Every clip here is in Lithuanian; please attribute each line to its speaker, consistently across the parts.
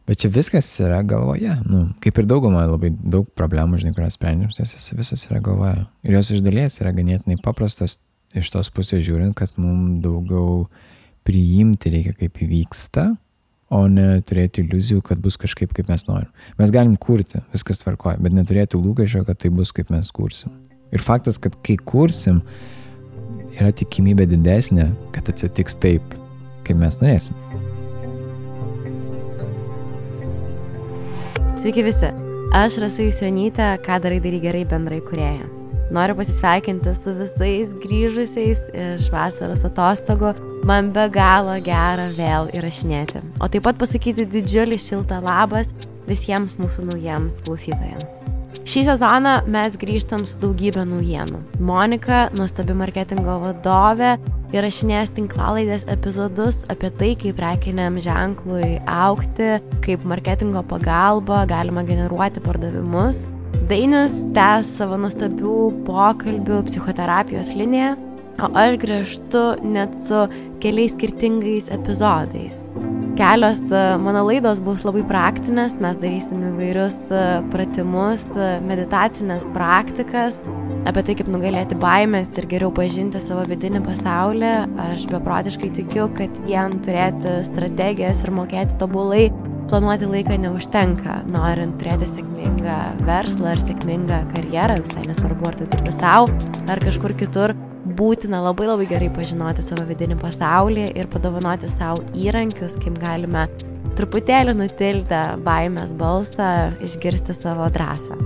Speaker 1: Bet čia viskas yra galvoje. Kaip ir dauguma labai daug problemų, žinai, kurios sprendžiam, jos visos yra galvoje. Ir jos iš dalies yra ganėtinai paprastos iš tos pusės žiūrint, kad mums daugiau priimti reikia, kaip įvyksta, o ne turėti iliuzijų, kad bus kažkaip, kaip mes norim. Mes galim kurti, viskas tvarkoja, bet neturėti lūkesčio, kad tai bus, kaip mes kursim. Ir faktas, kad kai kursim, yra tikimybė didesnė, kad atsitiks taip, kaip mes norėsim.
Speaker 2: Sveiki visi, aš Rasa Jusionytė, Ką darai gerai bendrai kūrėja. Noriu pasisveikinti su visais grįžusiais iš vasaros atostogų. Man be galo gera vėl įrašinėti. O taip pat pasakyti didžiulį šiltą labas visiems mūsų naujiems klausytojams. Šį sezoną mes grįžtam su daugybė naujienų. Monika, nuostabi marketingo vadovė, įrašinės tinklalaidės epizodus apie tai, kaip prekiniam ženklui augti, kaip marketingo pagalba galima generuoti pardavimus. Dainius tęs savo nuostabių pokalbių psichoterapijos liniją, o aš grįžtu net su keliais skirtingais epizodais. Kelios mano laidos bus labai praktinės, mes darysim įvairius pratimus, meditacinės praktikas, apie tai, kaip nugalėti baimės ir geriau pažinti savo vidinį pasaulį. Aš beprotiškai tikiu, kad vien turėti strategijas ir mokėti tobulai planuoti laiką neužtenka, norint turėti sėkmingą verslą ar sėkmingą karjerą, visai nesvarbu, ar tai dirbi sau, ar kažkur kitur. Būtina labai gerai pažinoti savo vidinį pasaulį ir padovanoti savo įrankius, kaip galime truputėlį nutildę baimės balsą, išgirsti savo drąsą.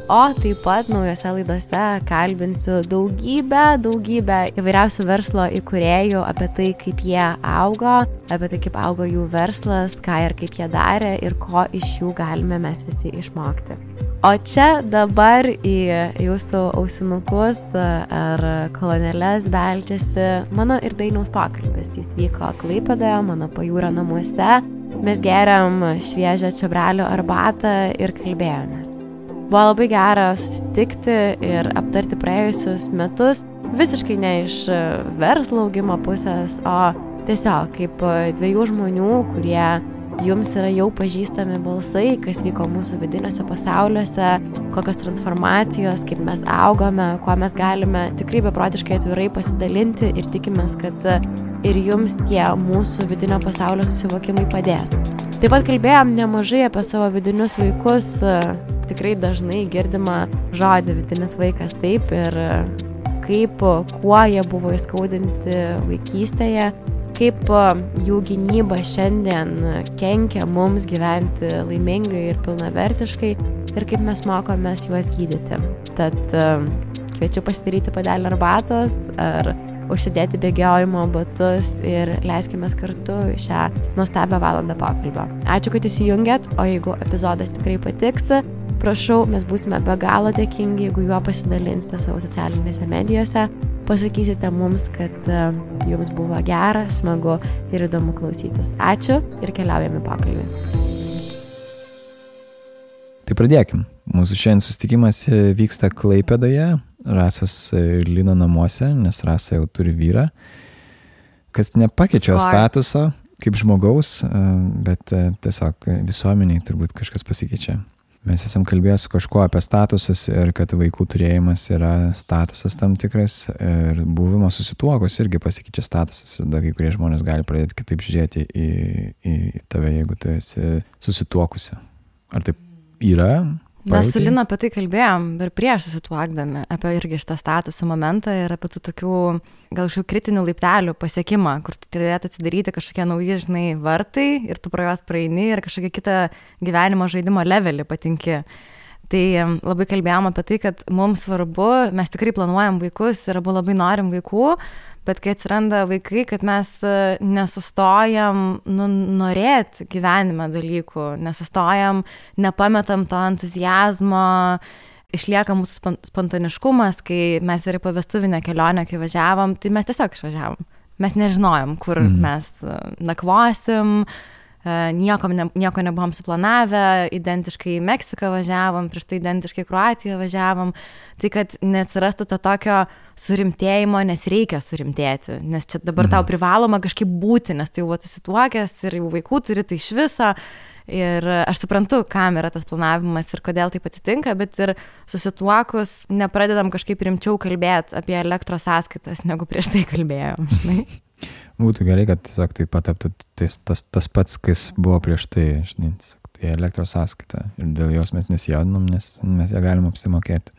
Speaker 2: O taip pat naujose laidose kalbinsiu daugybę įvairiausių verslo įkūrėjų apie tai, kaip jie augo, apie tai, kaip augo jų verslas, ką ir kaip jie darė ir ko iš jų galime mes visi išmokti. O čia dabar į jūsų ausinukus ar kolonėles beldžiasi mano ir Dainiaus pokalbis. Jis vyko Klaipėdoje, mano pajūrio namuose. Mes geriam šviežią čiobrelių arbatą ir kalbėjomės. Buvo labai gera susitikti ir aptarti praėjusius metus, visiškai ne iš verslo augimo pusės, o tiesiog kaip dviejų žmonių, kurie jums yra jau pažįstami balsai, kas vyko mūsų vidiniuose pasauliuose, kokios transformacijos, kaip mes augome, kuo mes galime tikrai beprotiškai atvirai pasidalinti ir tikimės, kad ir jums tie mūsų vidinio pasaulio susivokimai padės. Taip pat kalbėjom nemažai apie savo vidinius vaikus, tikrai dažnai girdima žodį vidinis vaikas taip ir kaip, kuo jie buvo įskaudinti vaikystėje, kaip jų gynyba šiandien kenkia mums gyventi laimingai ir pilnavertiškai ir kaip mes mokomės juos gydyti. Tad kviečiu pasidaryti puodelį arbatos ar užsidėti bėgiojimo batus ir leiskime kartu šią nuostabią valandą pokalbio. Ačiū, kad įsijungėt, o jeigu epizodas tikrai patiks, prašau, mes būsime be galo dėkingi, jeigu juo pasidalinsite savo socialinėse medijose. Pasakysite mums, kad jums buvo gera, smagu ir įdomu klausytis. Ačiū ir keliaujame pokalbį.
Speaker 1: Tai pradėkim. Mūsų šiandien susitikimas vyksta Klaipėdoje, Rasos ir Lino namuose, nes Rasa jau turi vyrą, kas nepakeičia statuso kaip žmogaus, bet tiesiog visuomeniai turbūt kažkas pasikeičia. Mes esam kalbėję su kažkuo apie statusus ir kad vaikų turėjimas yra statusas tam tikras ir buvimas susituokus irgi pasikeičia statusas ir kai kurie žmonės gali pradėti kitaip žiūrėti į tave, jeigu tu esi susituokusi. Ar taip yra?
Speaker 2: Mes su Lina apie tai kalbėjom ir prieš susituokdami, apie irgi šitą statusų momentą ir apie tų tokių gal šių kritinių laiptelių pasiekimą, kur tu turėtų atsidaryti kažkokie nauji, žinai, vartai ir tu pro juos praeini ir kažkokią kitą gyvenimo žaidimo levelį patinki. Tai labai kalbėjom apie tai, kad mums svarbu, mes tikrai planuojam vaikus ir abu labai norim vaikų, bet kai atsiranda vaikai, kad mes nesustojam norėti gyvenime dalykų, nesustojam, nepametam to entuzijazmo, išlieka mūsų spontaniškumas, kai mes ir į pavestuvinę kelionę, kai važiavom, tai mes tiesiog išvažiavom. Mes nežinojom, kur mes nakvosim, nieko nebuvom suplanavę, identiškai į Meksiką važiavom, prieš tai identiškai į Kroatiją važiavom, tai kad neatsirastų to tokio surimtėjimo, nes reikia surimtėti, nes čia dabar tau privaloma kažkaip būti, nes tu jau susituokęs ir jau vaikų turi, tai iš viso, Ir aš suprantu, kam yra tas planavimas ir kodėl taip atsitinka, bet ir susituokus nepradedam kažkaip rimčiau kalbėti apie elektros sąskaitas, negu prieš tai kalbėjom, žinai.
Speaker 1: Būtų gerai, kad tiesiog tai pataptų tas pats, kas buvo prieš tai, žinai, tiesiog tai elektros sąskaita ir dėl jos mes nesijaudinam, nes mes ją galim apsimokėti.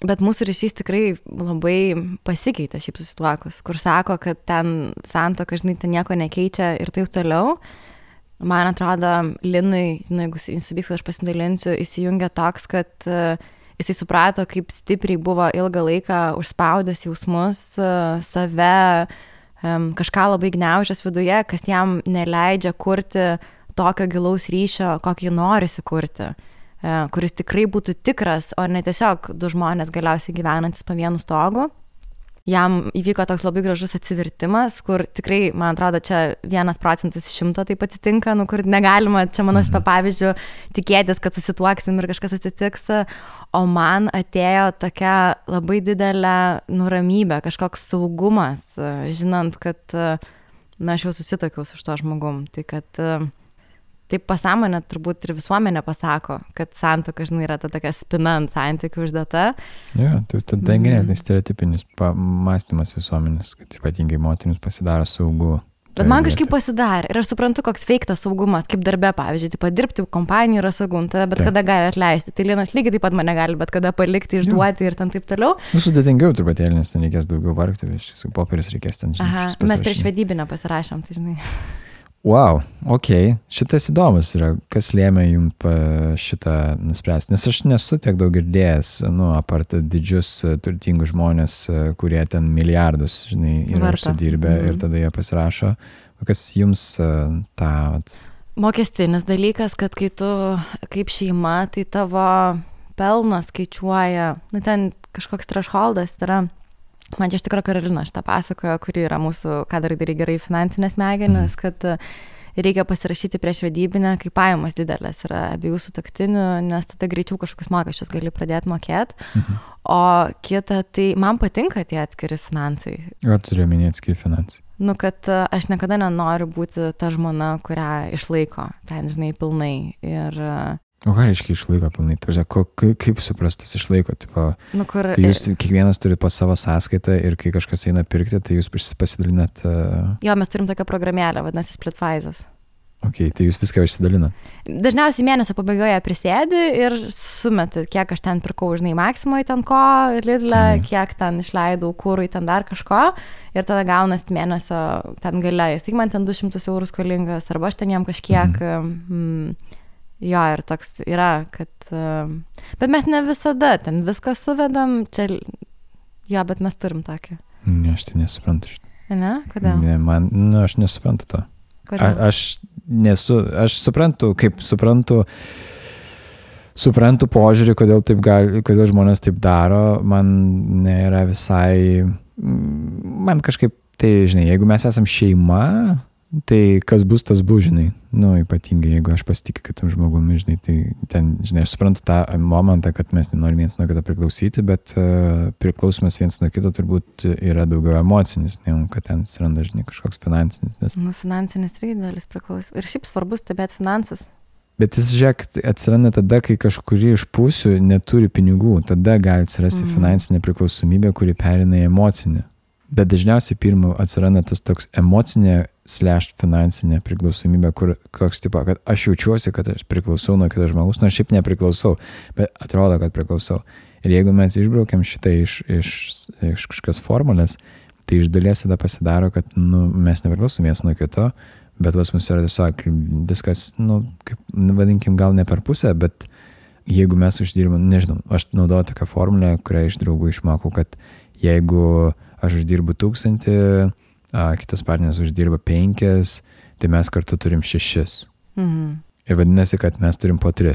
Speaker 2: Bet mūsų ryšys tikrai labai pasikeitė šiaip susituokus, kur sako, kad ten santuoka, žinai, ten nieko nekeičia ir taip toliau. Man atrodo, Linui, žinai, jeigu įsivyks, kad aš pasidalinsiu, įsijungia toks, kad jisai suprato, kaip stipriai buvo ilgą laiką užspaudęs jausmus, save, kažką labai gniaužęs viduje, kas jam neleidžia kurti tokio gilaus ryšio, kokį norisi kurti, kuris tikrai būtų tikras, o ne tiesiog du žmonės galiausiai gyvenantis po vienu stogu. Jam įvyko toks labai gražus atsivertimas, kur tikrai, man atrodo, čia 1% iš 100 taip atsitinka, kur negalima, čia mano šito pavyzdžiu, tikėtis, kad susituoksim ir kažkas atsitiks, o man atėjo tokia labai didelė nuramybė, kažkoks saugumas, žinant, kad aš jau susitokiau su šito žmogum, tai kad taip pasąmonė turbūt ir visuomenė pasako, kad santuoka, žinai, yra ta tokia spina ant santykių uždėta.
Speaker 1: Jo, tai tada ganėtinai stereotipinis mąstymas visuomenės, kad ypatingai moterims pasidaro saugu.
Speaker 2: Bet man kažkaip pasidarė ir aš suprantu, koks feiktas saugumas, kaip darbe, pavyzdžiui, taip dirbti kompanijai yra saugu, bet kada gali atleisti. Tai Linas lygiai taip pat mane gali, bet kada palikti, išduoti ir ten taip toliau.
Speaker 1: Sudėtingiau truputėlį, nes ten reikės daugiau vargti, su popierius reikės ten, žinai.
Speaker 2: Mes prieš vedybinę pasirašėm, tai žinai.
Speaker 1: Wow, okei. Šitas įdomus yra, kas lėmė jums šitą nuspręsti. Nes aš nesu tiek daug girdėjęs, apart didžius turtingus žmonės, kurie ten milijardus, žinai, yra užsidirbę ir tada jie pasirašo. Kas jums tą...
Speaker 2: Mokestinis dalykas, kad kai tu kaip šeima, tai tavo pelnas skaičiuoja, ten kažkoks thresholdas yra. Man čia iš tikrųjų Karolina šitą pasakojo, kuri yra mūsų, ką darai gerai finansinės smegenys, kad reikia pasirašyti prieš vedybinę, kai pajamos didelės yra abiejų sutuoktinių, nes tada greičiau kažkokius mokesčius gali pradėti mokėti. O kita, tai man patinka tie atskiri finansai.
Speaker 1: Ką turiu omeny atskiri finansai?
Speaker 2: Kad aš niekada nenoriu būti ta žmona, kurią išlaiko ten, žinai, pilnai. Ir
Speaker 1: o ką reiškia išlaiko pilnai? Kaip suprastas išlaiko? Tai jūs kiekvienas turite po savo sąskaitą ir kai kažkas eina pirkti, tai jūs pasidalinat...
Speaker 2: Jo, mes turim tokią programėlę, vadinasi Splitwise'as.
Speaker 1: Ok, tai jūs viską išsidalinat?
Speaker 2: Dažniausiai mėnesio pabaigoje prisėdi ir sumeti, kiek aš ten pirkau, žinai, Maximoje ten ko, Lidle, kiek ten išleidau kūrui, ten dar kažko, ir tada gaunas mėnesio ten gale. Jis tik man ten 200 eurų skolingas, arba aš ten jam kažkiek... Jo, ir toks yra, kad... Bet mes ne visada ten viską suvedam, čia... Jo, bet mes turim tokį.
Speaker 1: Ne, aš tai nesuprantu šitą.
Speaker 2: Ne? Kodėl?
Speaker 1: Ne, aš nesuprantu to.
Speaker 2: Kodėl?
Speaker 1: Aš suprantu požiūrį, kodėl žmonės taip daro. Man nėra visai... Man kažkaip, tai, žinai, jeigu mes esam šeima... Tai kas bus, tas bus, žinai, ypatingai, jeigu aš pasitikiu kitam žmogumi, žinai, tai ten, žinai, aš suprantu tą momentą, kad mes nenorim viens nuo kito priklausyti, bet priklausomas viens nuo kito turbūt yra daugiau emocinis, negu kad ten atsiranda, žinai, kažkoks finansinis. Nes...
Speaker 2: finansinis irgi dalis priklauso. Ir šiaip svarbus stebėti finansus.
Speaker 1: Bet jis, žiūrėk, atsiranda tada, kai kažkuri iš pusių neturi pinigų, tada gali atsirasti finansinė priklausomybė, kuri perina į emocinę. Bet dažniausiai pirmą atsiranda tas toks emocinė / finansinė priklausomybė, kur koks tipo, kad aš jaučiuosi, kad aš priklausau nuo kito žmogus, nors šiaip nepriklausau, bet atrodo, kad priklausau. Ir jeigu mes išbraukiam šitą iš kažkokios formulės, tai iš dalies tada pasidaro, kad mes nepriklausom vienas nuo kito, bet pas mus yra tiesiog viskas, kaip, vadinkim, gal ne per pusę, bet jeigu mes uždirbam, nežinau, aš naudoju tokią formulę, kurią iš draugų išmokau, kad jeigu aš uždirbu 1000, kitas partneris uždirba 5, tai mes kartu turim 6. Ir vadinasi, kad mes turim po 3.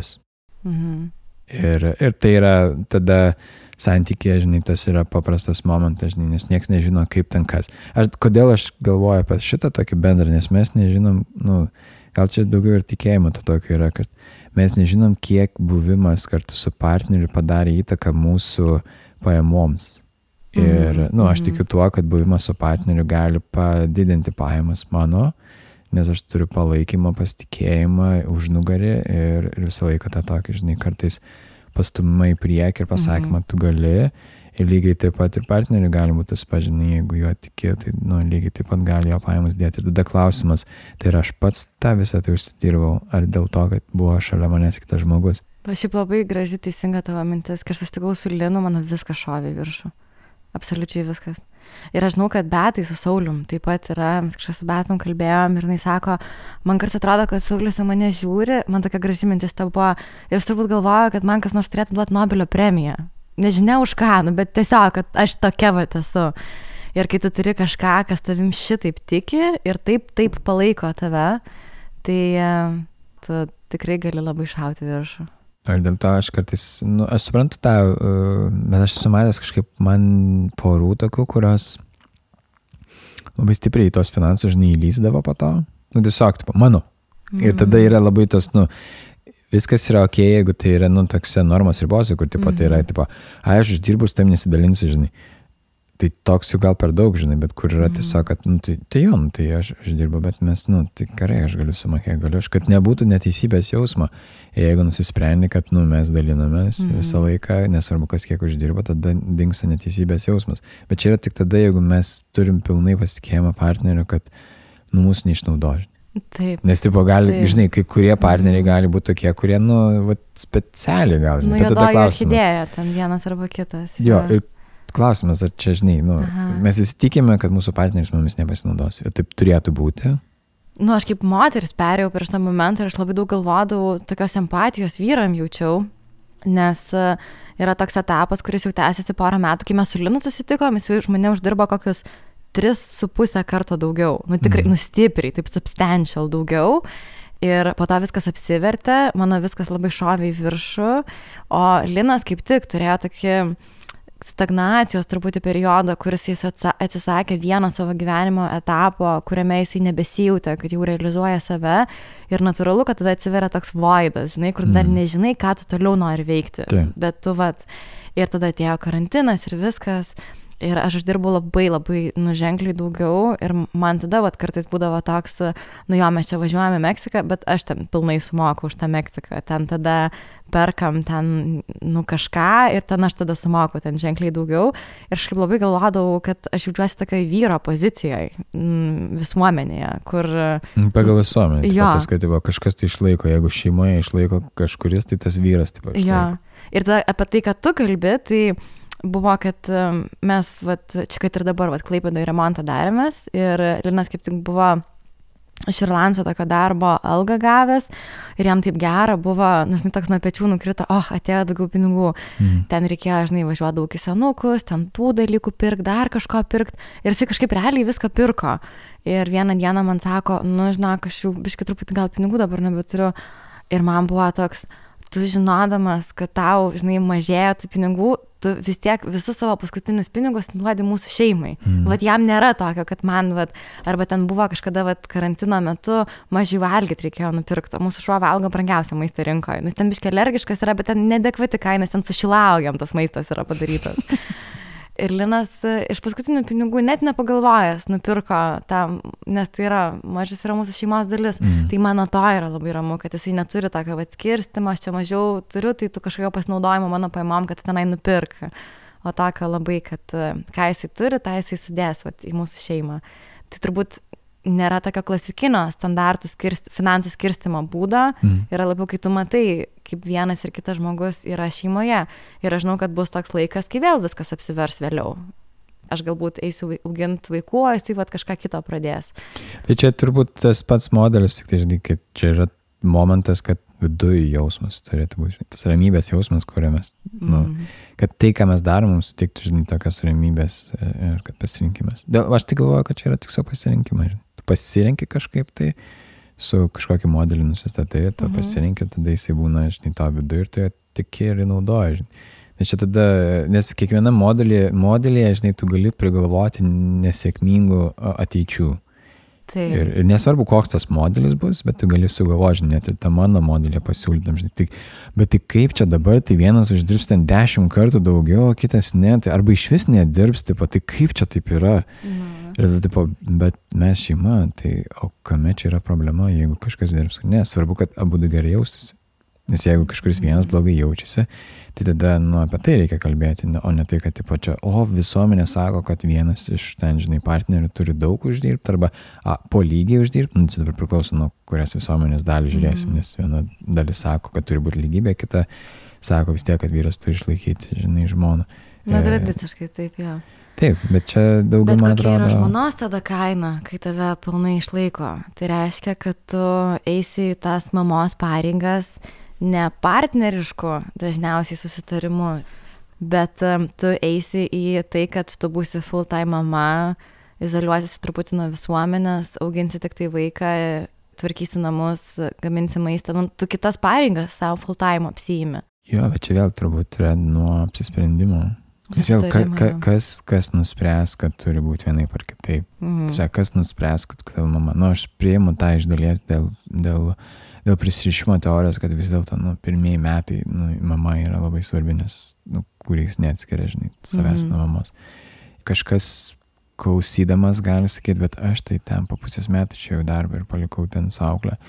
Speaker 1: Ir tai yra tada santykė, žinai, tas yra paprastas momentas, žinai, nes niekas nežino, kaip ten kas. Kodėl aš galvoju apie šitą tokį bendrą, nes mes nežinom, gal čia daugiau ir tikėjimo to tokio yra, kad mes nežinom, kiek buvimas kartu su partneriu padarė įtaką mūsų pajamoms. Ir, aš tikiu tuo, kad buvimas su partneriu gali padidinti pajamas mano, nes aš turiu palaikymą, pasitikėjimą, užnugarį ir visą laiką tą tokį, žinai, kartais pastumimą į priekį ir pasakymą, tu gali. Ir lygiai taip pat ir partneriui gali būti tas pažinai, jeigu jo tiki, tai lygiai taip pat gali jo pajamas dėti. Ir tada klausimas, tai aš pats tą visą tai užsidirbau, ar dėl to, kad buvo šalia manęs kitas žmogus.
Speaker 2: Šiaip labai graži teisinga tavo mintis. Kai aš susitikau su Linu, mano viskas šovė į viršų. Absoliučiai viskas. Ir aš žinau, kad Betai su Saulium taip pat yra, mes kažkas su Betom kalbėjom ir jinai sako, man kartais atrodo, kad Saulius į mane žiūri, man tokia graži mintis ta buvo, ir aš turbūt galvoju, kad man kas nors turėtų duoti Nobelio premiją. Nežinia už ką, bet tiesiog, kad aš tokia vat esu. Ir kai tu turi kažką, kas tavim šitaip tiki ir taip palaiko tave, tai tu tikrai gali labai šauti viršų.
Speaker 1: Ir dėl to aš kartais, aš suprantu tą, bet aš sumatęs kažkaip man porų tokių, kurios labai stipriai į tos finansus, žinai, įlysdavo po to. Tiesiog, tipo, mano. Ir tada yra labai tos, viskas yra ok, jeigu tai yra, toks normos ribose, kur, tipo, tai yra, tipo, aš uždirbus, tam nesidalinsiu, žinai. Tai toks jau gal per daug, žinai, bet kur yra tiesiog, kad, tai aš uždirbu, bet mes, tai gerai, aš galiu sumokėti, kad nebūtų neteisybės jausmo. Jeigu nusisprendi, kad, mes dalinamės visą laiką, nesvarbu, kas kiek uždirba, tada dingsta neteisybės jausmas. Bet čia yra tik tada, jeigu mes turim pilnai pasitikėjimą partneriu, kad, mūsų neišnaudoži.
Speaker 2: Taip.
Speaker 1: Nes, tipo, gali, žinai, kai kurie partneriai gali būti tokie, kurie, specialiai gal, žinai.
Speaker 2: Juodoji orchidėja, ten vienas arba kitas.
Speaker 1: Jo, ir klausimas, ar čia, žinai, mes įsitikime, kad mūsų partneris mumis nepasinaudos. Ir taip turėtų būti.
Speaker 2: Aš kaip moteris perėjau per šitą momentą ir aš labai daug galvodavau, tokios empatijos vyram jaučiau, nes yra toks etapas, kuris jau tęsiasi porą metų, kai mes su Linu susitikom, jis už mane uždirbo kokius 3,5 karto daugiau. Tikrai, stipriai, taip substantial daugiau. Ir po to viskas apsivertė, mano viskas labai šovė į viršų, o Linas kaip tik turėjo tokį stagnacijos truputį periodą, kuris jis atsisakė vieno savo gyvenimo etapo, kuriame jisai nebesijautė, kad jau realizuoja save. Ir natūralu, kad tada atsiveria toks voidas, žinai, kur dar nežinai, ką tu toliau nori veikti. Bet tu ir tada atėjo karantinas ir viskas. Ir aš uždirbau labai, labai ženkliai daugiau ir man tada kartais būdavo toks, mes čia važiuojame į Meksiką, bet aš ten pilnai sumoku už tą Meksiką, ten tada perkam ten, kažką ir ten aš tada sumoku ten ženkliai daugiau ir aš kaip labai galvodavau, kad aš jaučiuosi tokioj vyro pozicijoje visuomenėje, kur...
Speaker 1: Pagal visuomenę, tas, kad kažkas tai išlaiko, jeigu šeimoje išlaiko kažkuris, tai tas vyras taip išlaiko.
Speaker 2: Jo, ir tada apie tai, kad tu kalbi, tai... Buvo, kad mes, čia kad ir dabar, Klaipėdoje remontą darėmės ir Linas kaip tik buvo iš Irlandijos tokio darbo algą gavęs ir jam taip gera buvo, toks nuo pečių nukrito, atėjo daugiau pinigų. Ten reikėjo, važiuoti daug į senukus, ten tų dalykų pirkti, dar kažko pirkti ir jisai kažkaip realiai viską pirko. Ir vieną dieną man sako, žinok, aš jau biškį truputį gal pinigų dabar nebeturiu. Ir man buvo toks, tu žinodamas, kad tau, mažėjo tų pinigų, tu vis tiek visus savo paskutinius pinigus duodi mūsų šeimai. Jam nėra tokio, kad man, arba ten buvo kažkada, karantino metu mažiau valgyti reikėjo nupirkti, o mūsų šuo valgo brangiausią maistą rinkoje. Nes ten biškį alergiškas yra, bet ten nedekvati kaina, ten su šilaugiam tas maistas yra padarytas. Ir Linas iš paskutinių pinigų net nepagalvojęs nupirko tam, nes tai yra, mažas yra mūsų šeimos dalis. Tai mano to yra labai ramu, kad jisai neturi tokio skirstimo, aš čia mažiau turiu, tai tu kažkokio pasinaudojimo mano paimom, kad tenai nupirka. O tokio labai, kad ką jisai turi, tą jisai sudės į mūsų šeimą. Tai turbūt nėra tokio klasikinio standartų finansų skirstimo būdo, yra labiau, kai tu matai, kaip vienas ir kitas žmogus yra šeimoje. Ir aš žinau, kad bus toks laikas, kai vėl viskas apsivers vėliau. Aš galbūt eisiu auginti vaikų, o jisai kažką kito pradės.
Speaker 1: Tai čia turbūt tas pats modelis, tik tai žinai, kad čia yra momentas, kad viduje jausmas turėtų būti, tas ramybės jausmas, kurią mes, kad tai, ką mes darom, mums sutiktų, tokios ramybės ir kad pasirinkimas. Aš tik galvoju, kad čia yra tik savo pasirinkimas. Tu pasirinki kažkaip tai, su kažkokį modelį nusistatai, tu pasirinki, tada jisai būna, tavo viduje ir tu ją tiki ir naudoji. Nes čia tada, nes kiekviena modelėje, tu gali prigalvoti nesėkmingų ateičių. Ir nesvarbu, koks tas modelis bus, bet tu gali sugalvoti, net ir tą mano modelį pasiūlytam, žinai. Bet tai kaip čia dabar, tai vienas uždirbs ten 10 kartų daugiau, kitas ne, tai arba iš vis nedirbs, tai kaip čia taip yra. Ir tada, bet mes šeima, tai o kame čia yra problema, jeigu kažkas dirbs? Ne, svarbu, kad abu gerai jaustųsi. Nes jeigu kažkuris vienas blogai jaučiasi, tai tada, apie tai reikia kalbėti, o ne tai, kad, čia, visuomenė sako, kad vienas iš ten, žinai, partnerių turi daug uždirbti, arba po lygiai uždirbti, tai dabar priklauso nuo kurias visuomenės dalį žiūrėsim, nes viena dalis sako, kad turi būti lygybė, kita sako vis tiek, kad vyras turi išlaikyti, žinai, žmoną.
Speaker 2: Tradiciškai taip, jo.
Speaker 1: Taip, bet čia daugiau, man atrodo...
Speaker 2: Bet kokia yra žmonos tada kaina, kai tave pilnai išlaiko? Tai reiškia, kad tu eisi į tas mamos pareigas ne partnerišku dažniausiai susitarimu, bet tu eisi į tai, kad tu būsi full-time mama, izoliuosiesi truputį nuo visuomenės, auginsi tik tai vaiką, tvarkysi namus, gaminsi maistą, tu kitas pareigas savo full-time apsiimi.
Speaker 1: Jo, bet čia vėl turbūt yra nuo apsisprendimo. Nes vėl, kas nuspręs, kad turi būti vienaip ar kitaip. Tai kas nuspręs, kad tavo mama. Aš priimu tą iš dalies dėl prisirišimo teorijos, kad vis dėlto pirmieji metai mama yra labai svarbi, nes kuriais neatskiria, žinai, savęs nuo mamos. Kažkas klausydamas gali sakyti, bet aš tai ten po pusės metų čia jau darbą ir palikau ten su auklę.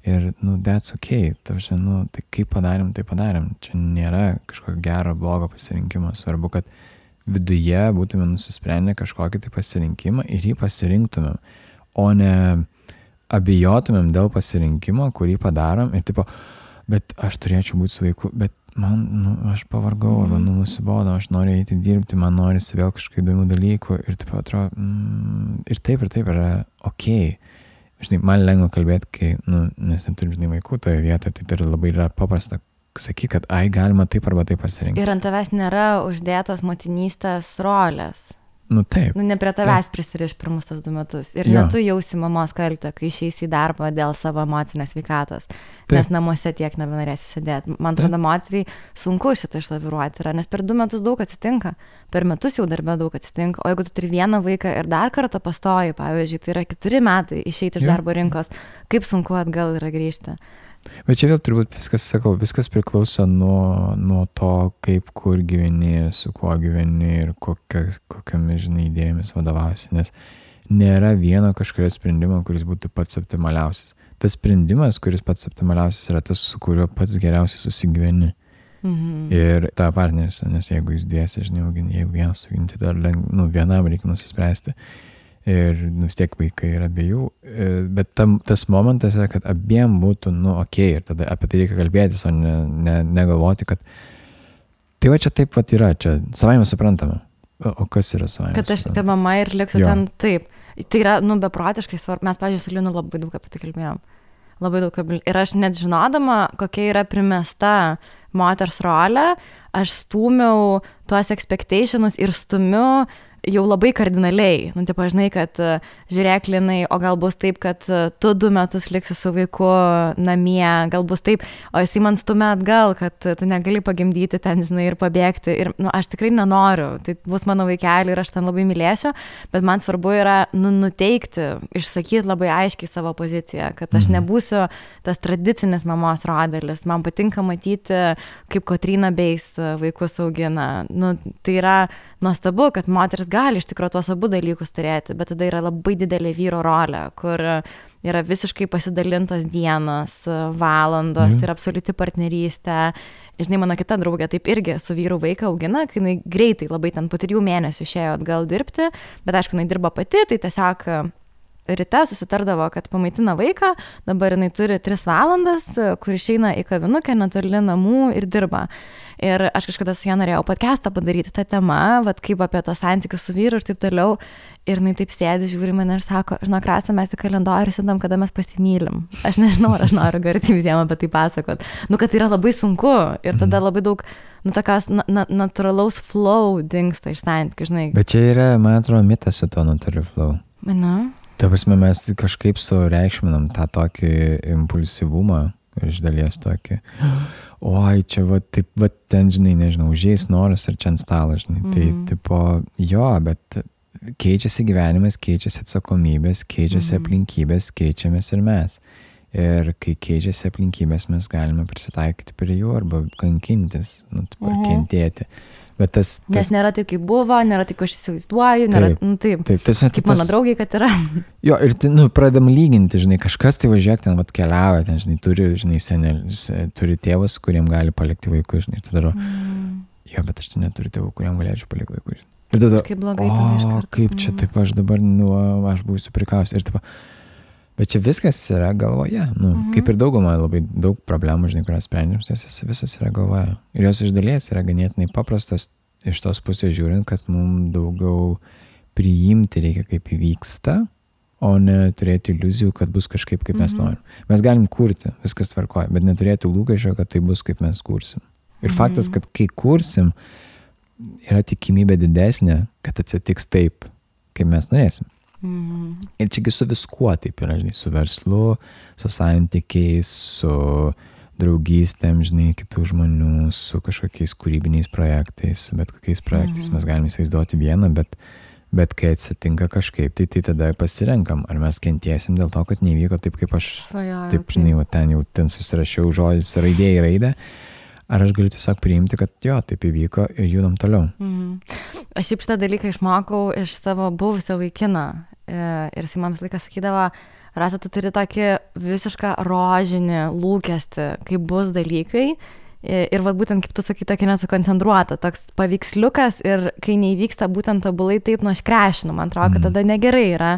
Speaker 1: Ir, that's okay. Tai kaip padarėm, tai padarėm. Čia nėra kažkokio gero, blogo pasirinkimo. Svarbu, kad viduje būtume nusisprendę kažkokį tai pasirinkimą ir jį pasirinktumėm, o ne abijotumėm dėl pasirinkimo, kurį padarom ir bet aš turėčiau būti su vaiku, bet man, aš pavargau, arba nusibodo, aš noriu eiti dirbti, man norisi vėl kažkokių įdomių dalykų ir atrodo, ir taip yra okei. Žinai, man lengva kalbėti, kai, nes neturim, žinai, vaikų toje vietoje, tai labai yra paprasta sakyti, kad galima taip arba taip pasirinkti.
Speaker 2: Ir ant tavęs nėra uždėtos motinystės rolės.
Speaker 1: Taip.
Speaker 2: Ne prie tavęs prisiriš pirmus tos 2 metus. Ir ne tu jausi mamos kaltę, kai išeisi į darbą dėl savo emocinės sveikatos. Nes namuose tiek nebenorėsi sėdėti. Man atrodo, moteriai sunku šitą išlaviruoti yra, nes per 2 metus daug atsitinka. Per metus jau darbe daug atsitinka. O jeigu tu turi vieną vaiką ir dar kartą pastoji, pavyzdžiui, tai yra 4 metai išeiti iš darbo rinkos, kaip sunku atgal yra grįžti.
Speaker 1: Bet čia vėl turbūt viskas priklauso nuo to, kaip, kur gyveni ir su kuo gyveni ir kokiamis, žinai, idėjomis vadovausi, nes nėra vieno kažkurio sprendimo, kuris būtų pats optimaliausias. Tas sprendimas, kuris pats optimaliausias, yra tas, su kuriuo pats geriausiai susigyveni. Ir ta partneris, nes jeigu jūs dviesi, žinai, jeigu vienas suginti, dar vienam reikia nusispręsti. Ir vis tiek vaikai yra abiejų, bet tas momentas yra, kad abiem būtų, okei, ir tada apie tai reikia kalbėtis, o negalvoti, kad tai va čia taip yra, čia savaime suprantama. O kas yra savaime?
Speaker 2: Kad aš ta mama ir liksiu ten taip. Tai yra, beprotiškai svarbu. Mes, pavyzdžiui, su Linu labai daug apie tai kalbėjom. Labai daug. Ir aš net žinodama, kokia yra primesta moters rolė, aš stūmiau tuos expectationus ir stumiu jau labai kardinaliai. Žinai, kad žiūrėk, Linai, o gal bus taip, kad tu 2 metus liksi su vaiku namie, gal bus taip, o jisai man stumia atgal, kad tu negali pagimdyti ten, žinai, ir pabėgti. Ir aš tikrai nenoriu, tai bus mano vaikelį ir aš ten labai mylėsiu, bet man svarbu yra nuteikti, išsakyti labai aiškiai savo poziciją, kad aš nebūsiu tas tradicinis mamos rodelis. Man patinka matyti, kaip Kotryna Beis vaikus augina. Tai yra nuostabu, kad moteris gali iš tikrųjų tuos abu dalykus turėti, bet tada yra labai didelė vyro rolė, kur yra visiškai pasidalintos dienos, valandos, tai yra absoliuti partnerystė. Žinai, mano kita draugė taip irgi su vyru vaiką augina, kai jinai greitai labai ten po 3 mėnesių išėjo atgal dirbti, bet aišku, jinai dirba pati, tai tiesiog ryte susitardavo, kad pamaitina vaiką, dabar jinai turi 3 valandas, kur išeina į kavinukę netoli namų ir dirba. Ir aš kažkada su ja norėjau podcastą padaryti tą temą, kaip apie tos santykius su vyru ir taip toliau. Ir jinai taip sėdi, žiūri mane ir sako, žinok, Rasa, mes į kalendorių sėdam, kada mes pasimylim. Aš nežinau, ar aš noriu garsiai visiems apie tai pasakot. Kad tai yra labai sunku ir tada labai daug, tokios natūralaus flow dingsta iš santykių, žinai.
Speaker 1: Bet čia yra, man atrodo, mitas su to natūraliu flow. Ta prasme, mes kažkaip sureikšminam tą tokį impulsyvumą ir iš dalies tokį, oi, čia ten, žinai, nežinau, užėjęs noras ir čia ant stalo, žinai. Tai, tipo, jo, bet keičiasi gyvenimas, keičiasi atsakomybės, keičiasi aplinkybės, keičiamės ir mes. Ir kai keičiasi aplinkybės, mes galime prisitaikyti prie jų arba kankintis, kentėti. Bet
Speaker 2: Nes nėra taip, kaip buvo, nėra taip, aš įsivaizduoju, nėra taip. Kaip mano draugai, kad yra.
Speaker 1: Jo, ir pradedam lyginti, žinai, kažkas tai važiuok ten, keliauja, ten, žinai, turi, žinai, senelis, turi tėvus, kuriem gali palikti vaikus, žinai, tada daro, jo, bet aš neturiu tėvų, kuriem galėčiau palikti vaikus. Ir tada,
Speaker 2: kaip blogai tave iš karto.
Speaker 1: Kaip čia taip aš dabar, aš būsiu prikausiu. Ir taip, bet čia viskas yra galvoje, kaip ir dauguma, labai daug problemų, žinai, kurios sprendžiam, visos yra galvoje. Ir jos iš dalies yra ganėtinai paprastos iš tos pusės žiūrint, kad mums daugiau priimti reikia, kaip įvyksta, o ne turėti iliuzijų, kad bus kažkaip, kaip mes norim. Mes galim kurti, viskas tvarkoja, bet neturėti lūkesčio, kad tai bus, kaip mes kursim. Ir faktas, kad kai kursim, yra tikimybė didesnė, kad atsitiks taip, kaip mes norėsim. Ir čiagi su viskuo taip yra, žinai, su verslu, su santykiais, su draugystėm, žinai, kitų žmonių, su kažkokiais kūrybiniais projektais, su bet kokiais projektais mes galime įsivaizduoti vieną, bet kai atsitinka kažkaip, tai tada pasirenkam, ar mes kentėsim dėl to, kad nevyko taip, kaip aš, taip, žinai, ten susirašiau žodis raidė į raidę, ar aš galiu tiesiog priimti, kad jo, taip įvyko ir judam toliau.
Speaker 2: Aš šiaip šitą dalyką išmokau iš savo buvusio vaikino ir jis man visą laiką sakydavo, Rasa, tu turi tokį visišką rožinį lūkestį, kaip bus dalykai ir būtent, kaip tu sakai, tokį nesukoncentruota, toks paveiksliukas ir kai neįvyksta būtent tobulai taip, aš krešinu, man atrodo, kad tada negerai yra.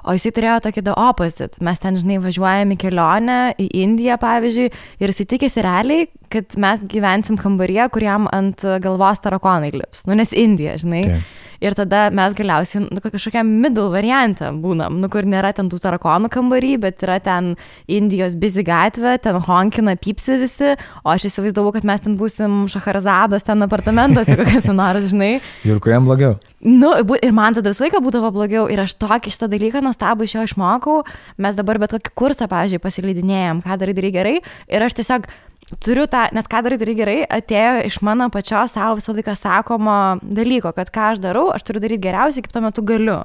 Speaker 2: O jisai turėjo tokį the opposite. Mes ten, žinai, važiuojame į kelionę, į Indiją, pavyzdžiui, ir jisai tikėsi realiai, kad mes gyvensim kambaryje, kuriam ant galvos tarakonai lips. Nes Indija, žinai. Taip. Ir tada mes galiausiai kažkokiam middle variantą būnam, kur nėra ten tų tarakonų kambarį, bet yra ten Indijos busy gatvė, ten honkina, pypsi visi, o aš įsivaizdavau, kad mes ten būsim Šaharazados ten apartamentuose, kokias nors, žinai.
Speaker 1: Ir kuriam blogiau.
Speaker 2: Ir man tada visą laiką būdavo blogiau ir aš tokį šitą dalyką nuostabų iš jo išmokau. Mes dabar bet kokį kursą, pavyzdžiui, pasileidinėjom, ką darai gerai ir aš tiesiog turiu tą, nes ką darai gerai, atėjo iš mano pačios savo visą laiką sakomo dalyko, kad ką aš darau, aš turiu daryti geriausiai, kaip tuo metu galiu.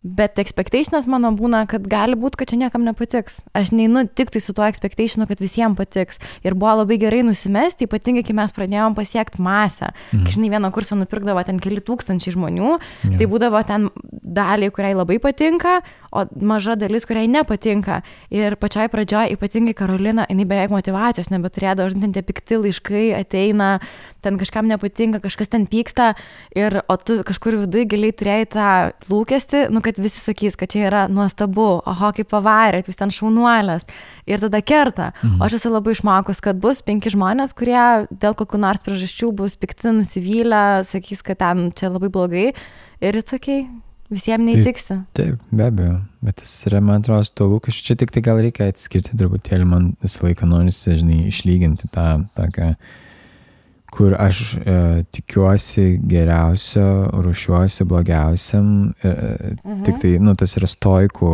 Speaker 2: Bet expectationas mano būna, kad gali būti, kad čia niekam nepatiks. Aš neinu tik tai su tuo expectationu, kad visiems patiks. Ir buvo labai gerai nusimesti, ypatingai, kai mes pradėjom pasiekti masę. Kai, žinai, vieną kursą nupirkdavo ten keli tūkstančiai žmonių, tai būdavo ten daliai, kuriai labai patinka, o maža dalis, kuriai nepatinka. Ir pačioj pradžioj, ypatingai Karolina, jinai beveik motyvacijos nebeturėdavo, žinai, tie pikti laiškai ateina, ten kažkam nepatinka, kažkas ten pyksta, o tu kažkur viduje giliai turėjai tą lūkestį, kad visi sakys, kad čia yra nuostabu, oho, kaip pavarėt, jūs ten šaunuolės. Ir tada kerta. O aš esu labai išmokus, kad bus 5 žmonės, kurie dėl kokių nors priežasčių bus pikti, nusivylę, sakys, kad ten čia labai blogai. Ir it's okay. Visiems neįtiksi.
Speaker 1: Taip, be abejo. Bet tas yra, man atrodo, to lūkesčių. Čia tik tai gal reikia atskirti truputėlį, man visą laiką norisi, žinai, išlyginti tą tokią, kur aš tikiuosi geriausio, ruošiuosi blogiausiam. Tik tai, tas yra stoikų,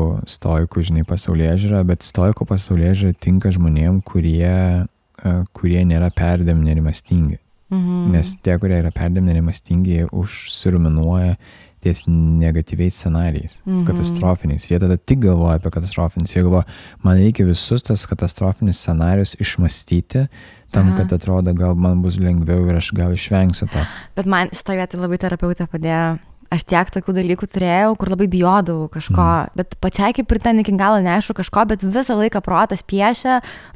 Speaker 1: žinai, pasaulėžiūra, bet stoikų pasaulėžiūra tinka žmonėm, kurie nėra perdėm nerimastingi. Nes tie, kurie yra perdėm nerimastingi, jie užsiruminuoja ties negatyviais scenarijais, katastrofiniais. Jie tada tik galvoja apie katastrofinius. Jie galvoja, man reikia visus tas katastrofinius scenarijus išmastyti, tam, kad atrodo, gal man bus lengviau ir aš gal išvengsiu to.
Speaker 2: Bet man šitą vietą labai terapeutė padėjo. Aš tiek tokių dalykų turėjau, kur labai bijodavau kažko, bet pačiai kaip ir ten iki galo neaišku kažko, bet visą laiką protas piešia,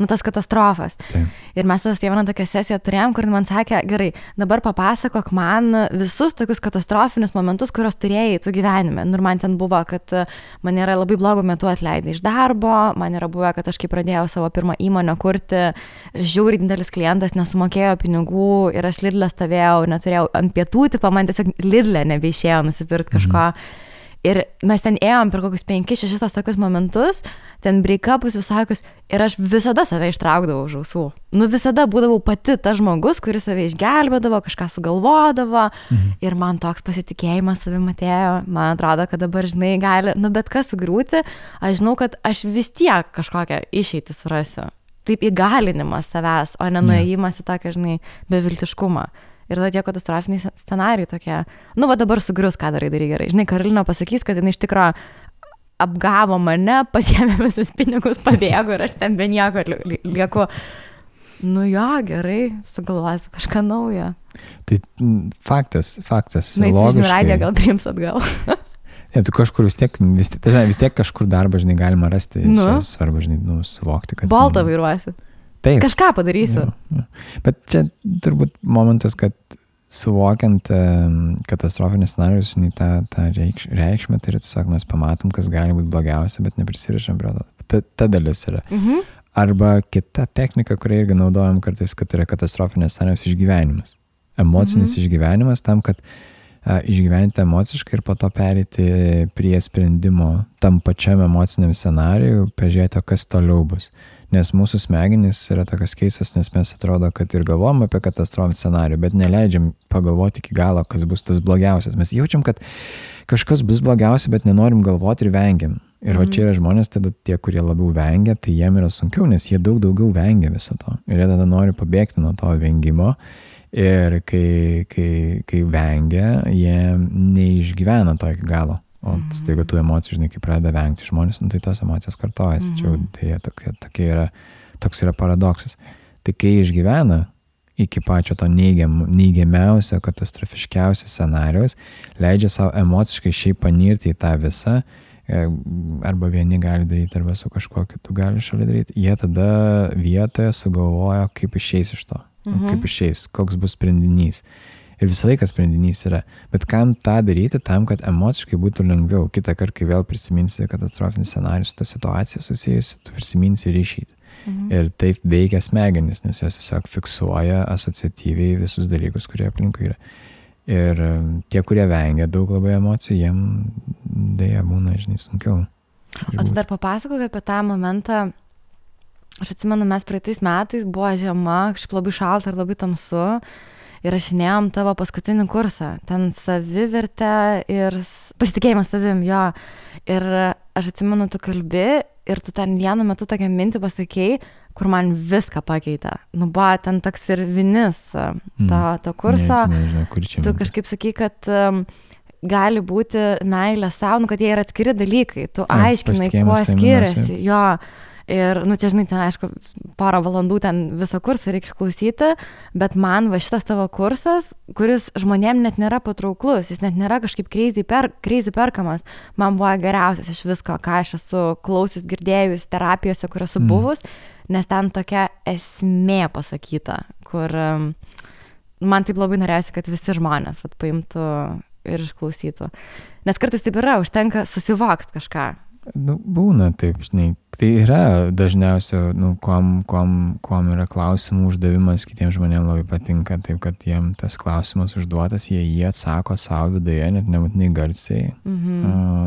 Speaker 2: tas katastrofas.
Speaker 1: Taip.
Speaker 2: Ir mes tada vieną tokią sesiją turėjom, kur man sakė, gerai, dabar papasakok man visus tokius katastrofinius momentus, kuriuos turėjai tu gyvenime. Ir man ten buvo, kad man yra labai blogų metų atleidai iš darbo, man yra buvę, kad aš kai pradėjau savo pirmą įmonę kurti, žiauriai didelis klientas nesumokėjo pinigų ir aš Lidle stovėjau, neturėjau ant pietų, man tiesiog Lidle nebeišėjo nusipirkti kažko. Ir mes ten ėjom per kokius 5-6 tokius momentus, ten break-upus visokius, ir aš visada save ištraukdavau už ausų. Visada būdavau pati ta žmogus, kuris save išgelbėdavo, kažką sugalvodavo, ir man toks pasitikėjimas savim atėjo. Man atrodo, kad dabar, žinai, gali, bet kas sugriūti, aš žinau, kad aš vis tiek kažkokią išeitį surasiu. Taip įgalinimas savęs, o ne nuėjimas į tokią, žinai, beviltiškumą. Ir tada tie katastrofiniai scenarijai tokie, nu va dabar sugrius, ką darai gerai. Žinai, Karolina pasakys, kad jinai iš tikro apgavo mane, pasiėmė visus pinigus, pabėgo ir aš ten be nieko lieku. Nu jo, gerai, sugalvosiu kažką naujo.
Speaker 1: Tai faktas,
Speaker 2: Na, jis žinių radiją gal priims atgal.
Speaker 1: Ne, tu kažkur vis tiek kažkur darbą, žinai, galima rasti. Svarbu, žinai, suvokti, kad...
Speaker 2: Boltą vairuosi.
Speaker 1: Taip.
Speaker 2: Kažką padarysiu.
Speaker 1: Jo. Bet čia turbūt momentas, kad suvokiant katastrofinės scenarijus, žinai, tą reikšmę, tai yra tiesiog mes pamatom, kas gali būti blogiausia, bet neprisirišam prie to. Ta dalis yra. Arba kita technika, kurią irgi naudojam kartais, kad yra katastrofinės scenarijos išgyvenimas. Emocinis išgyvenimas tam, kad išgyventi emociškai ir po to pereiti prie sprendimo tam pačiam emociniam scenarijui, pažiūrėti, kas toliau bus. Nes mūsų smegenys yra tokios keistos, nes mes atrodo, kad ir galvom apie katastrofinį scenarijų, bet neleidžiam pagalvoti iki galo, kas bus tas blogiausias. Mes jaučiam, kad kažkas bus blogiausia, bet nenorim galvoti ir vengiam. Ir va čia yra žmonės, tada tie, kurie labiau vengia, tai jiem yra sunkiau, nes jie daug daugiau vengia viso to. Ir jie tada nori pabėgti nuo to vengimo. Ir kai vengia, jie neišgyvena to iki galo. O staiga tų emocijų, žinai, kai pradeda vengti žmonės, tai tos emocijos kartojasi. Čia toks yra paradoksas. Tai kai išgyvena iki pačio to neigiamiausio, katastrofiškiausio scenarijos, leidžia savo emociškai šiaip panirti į tą visą, arba vieni gali daryti, arba su kažkuo kitu gali šalia daryti, jie tada vietoje sugalvoja, kaip išeis iš to. Kaip išeis, koks bus sprendinys. Ir visą laiką sprendinys yra. Bet kam tą daryti, tam, kad emociškai būtų lengviau. Kitą kartą, kai vėl prisiminsi katastrofinį scenarijų su ta situacija susijusi, tu prisiminsi ir išeiti. Ir taip veikia smegenis, nes jos tiesiog fiksuoja asociatyviai visus dalykus, kurie aplinkui yra. Ir tie, kurie vengia daug labai emocijų, jiem dėja būna, žinai, sunkiau.
Speaker 2: O tu dar papasakok apie tą momentą. Aš atsimenu, mes praeitais metais buvo žiema, kažkaip labai šalta ir labai tamsu. Ir rašinėjom tavo paskutinį kursą. Ten savivertė ir pasitikėjimas savim, jo. Ir aš atsimenu, tu kalbi ir tu ten vienu metu tokią mintį pasakei, kur man viską pakeitė. Nu, buvo ten toks ir vinis to kurso.
Speaker 1: Nežinau, kur čia.
Speaker 2: Tu kažkaip sakai, kad gali būti meilė savo, kad jie yra atskiri dalykai. Tu aiškinai, kuo skiriasi. Jo. Ir, nu, čia, žinai, ten, aišku, porą valandų ten visą kursą reikia išklausyti, bet man va šitas tavo kursas, kuris žmonėm net nėra patrauklus, jis net nėra kažkaip crazy perkamas, man buvo geriausias iš visko, ką aš esu klausius, girdėjus terapijose, kur esu buvus, nes ten tokia esmė pasakyta, kur man taip labai norėjosi, kad visi žmonės paimtų ir išklausytų. Nes kartais taip yra, užtenka susivokti kažką.
Speaker 1: Nu, būna taip, žinai. Tai yra dažniausia, nu, kuom yra klausimų uždavimas, kitiems žmonėms labai patinka, taip, kad jiem tas klausimas užduotas, jie atsako savo viduje, net nebūtinai garsiai.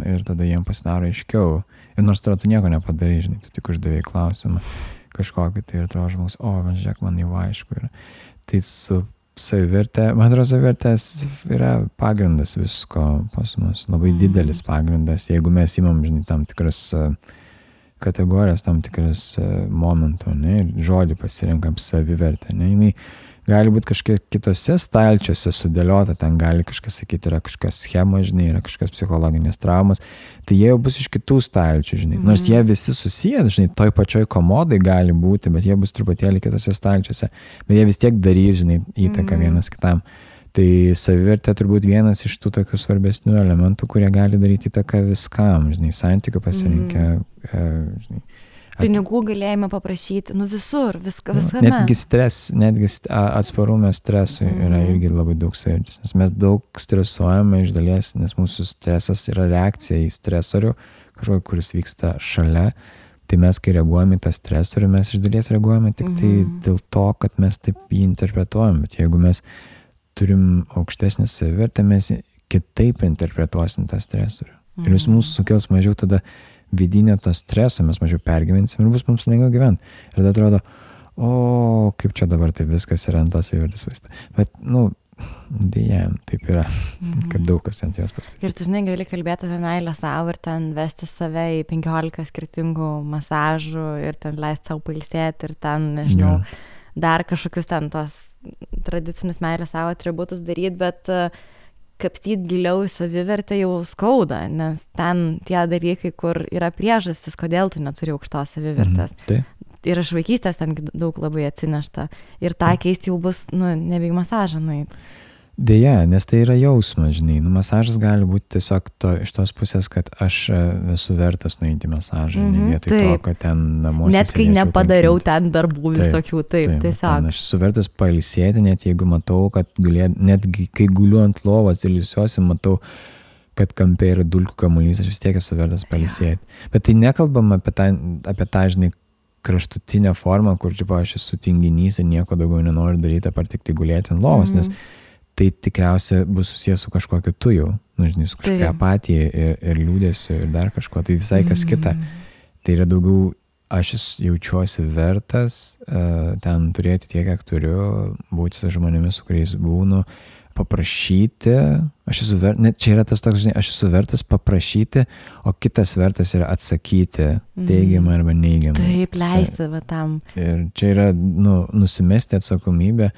Speaker 1: Ir tada jiem pasidaro aiškiau. Ir nors tu nieko nepadarai, žinai, tu tik uždavėjai klausimą kažkokį, tai ir atrodo žmogus, man žiūrėk, man jau aišku yra. Tai su savivertė, man atrodo, savivertės yra pagrindas visko pas mus, labai didelis pagrindas, jeigu mes imam, žinai, tam tikras kategorijas, tam tikras momentų, ne, ir žodį pasirinkam savivertę, ne, jinai gali būti kažkiek kitose stalčiuose sudėliota, ten gali kažkas sakyti, yra kažkas schema, žinai, yra kažkas psichologinės traumas, tai jie jau bus iš kitų stalčių, žinai, nors jie visi susiję, žinai, toj pačioj komodai gali būti, bet jie bus truputėlį kitose stalčiuose, bet jie vis tiek darys, žinai, įtaką vienas kitam. Tai savivertė turbūt vienas iš tų tokių svarbesnių elementų, kurie gali daryti įtaką viskam, žinai, santykių pasirinkę, žinai.
Speaker 2: Pinigų galėjime paprašyti, nu visur, viskame.
Speaker 1: Netgi atsparume stresui yra irgi labai daug savivertės, nes mes daug stresuojame iš dalies, nes mūsų stresas yra reakcija į stresorių, kažkokį, kuris vyksta šalia, tai mes, kai reaguojame į tą stresorių, mes iš dalies reaguojame tik tai dėl to, kad mes taip jį interpretuojam, bet jeigu mes turim aukštesnę savivertę, mes kitaip interpretuosim tą stresorių. Ir jis mūsų sukels mažiau tada vidinio to streso, mes mažiau pergyvensim ir bus mums lengviau gyventi. Ir tada atrodo, kaip čia dabar taip viskas yra ant tos savivertės vaizdo. Bet, nu, dėja, taip yra, kad daug kas ant jos pastatyti.
Speaker 2: Ir tu, žinai, gali kalbėti apie meilę savo ir ten vesti save į 15 skirtingų masažų ir ten leisti savo pailsėti ir ten, nežinau, dar kažkokius ten tos tradicinius meilės savo atributus daryti, bet kapstyti giliau į savivertę jau skauda, nes ten tie dalykai, kur yra priežastis, kodėl tu neturi aukštos savivertės. Ir iš vaikystės ten daug labai atsinešta. Ir tą keisti jau bus, nebe į masažą nueit.
Speaker 1: Deja, nes tai yra jausmas, žinai. Masažas gali būti tiesiog iš tos pusės, kad aš esu vertas nueiti masažą, ne vietoj to, kad ten namuose
Speaker 2: net kai nepadariau ten darbų visokių, tiesiog.
Speaker 1: Aš esu vertas pailsėti, net jeigu matau, kad netgi kai guliu ant lovos ir ilsiuosi, matau, kad kampe yra dulkių kamuolys, aš vis tiek esu vertas pailsėti. Bet tai nekalbam apie tą, žinai, kraštutinę formą, kur aš esu tinginys ir nieko daugiau nenoriu daryti, apart tik gulėti ant lovos, nes tai tikriausiai bus susijęs su kažkokiu tu jau, žinai, su kažkokia apatija ir liūdėsiu ir dar kažko, tai visai kas kita. Tai yra daugiau, aš jaučiuosi vertas ten turėti tiek, kiek turiu, būti su žmonėmis, su kuriais būnu, paprašyti, net čia yra tas toks, žinai, aš esu vertas paprašyti, o kitas vertas yra atsakyti teigiamą arba neigiamą.
Speaker 2: Taip, leisti va tam.
Speaker 1: Ir čia yra, nusimesti atsakomybę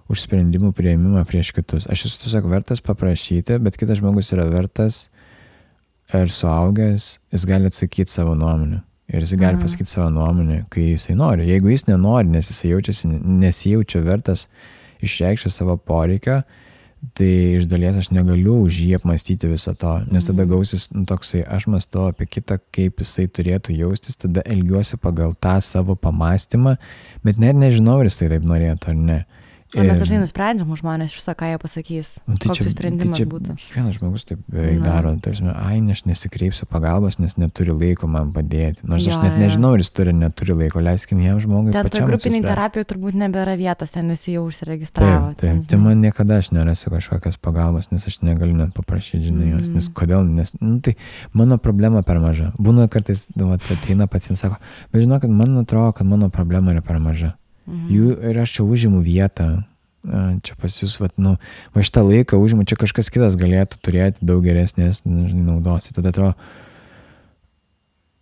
Speaker 1: už sprendimų priėmimą prieš kitus. Aš esu tiesiog vertas paprašyti, bet kitas žmogus yra vertas ir suaugęs, jis gali atsakyti savo nuomonę. Ir jis gali pasakyti savo nuomonę, kai jisai nori. Jeigu jis nenori, nes jisai nesijaučia vertas išreikšti savo poreikio, tai iš dalies aš negaliu už jį apmąstyti viso to, nes tada gausis toksai, aš mąstau apie kitą, kaip jisai turėtų jaustis, tada elgiuosi pagal tą savo pamąstymą, bet net nežinau, ar jis tai taip norėtų ar ne.
Speaker 2: O mes dažnai nusprendžiam už žmonės viso, ką jie pasakys, koks jų sprendimas būtų.
Speaker 1: Kiekvienas žmogus taip beveik daro, tarsi, aš nesikreipsiu pagalbos, nes neturi laiko man padėti. Nors aš net nežinau, ar jis turi, neturi laiko, leiskim jam žmogui pačiam apsispręsti. Ten grupiniai terapijoj turbūt nebėra vietos, ten visi jau užsiregistravo. Taip, tai man niekada aš nerasiu kažkokios pagalbos, nes aš negaliu net paprašyti, žinai, jos, nes kodėl, tai mano problema per maža. Būna kartais, ateina pacientas, sako, bet žinau, kad man atrodo, kad mano problema yra per maža. Ir aš čia užimu vietą, čia pas jūs, va šitą laiką užimu, čia kažkas kitas galėtų turėti daug geresnės naudos. Tada atrodo,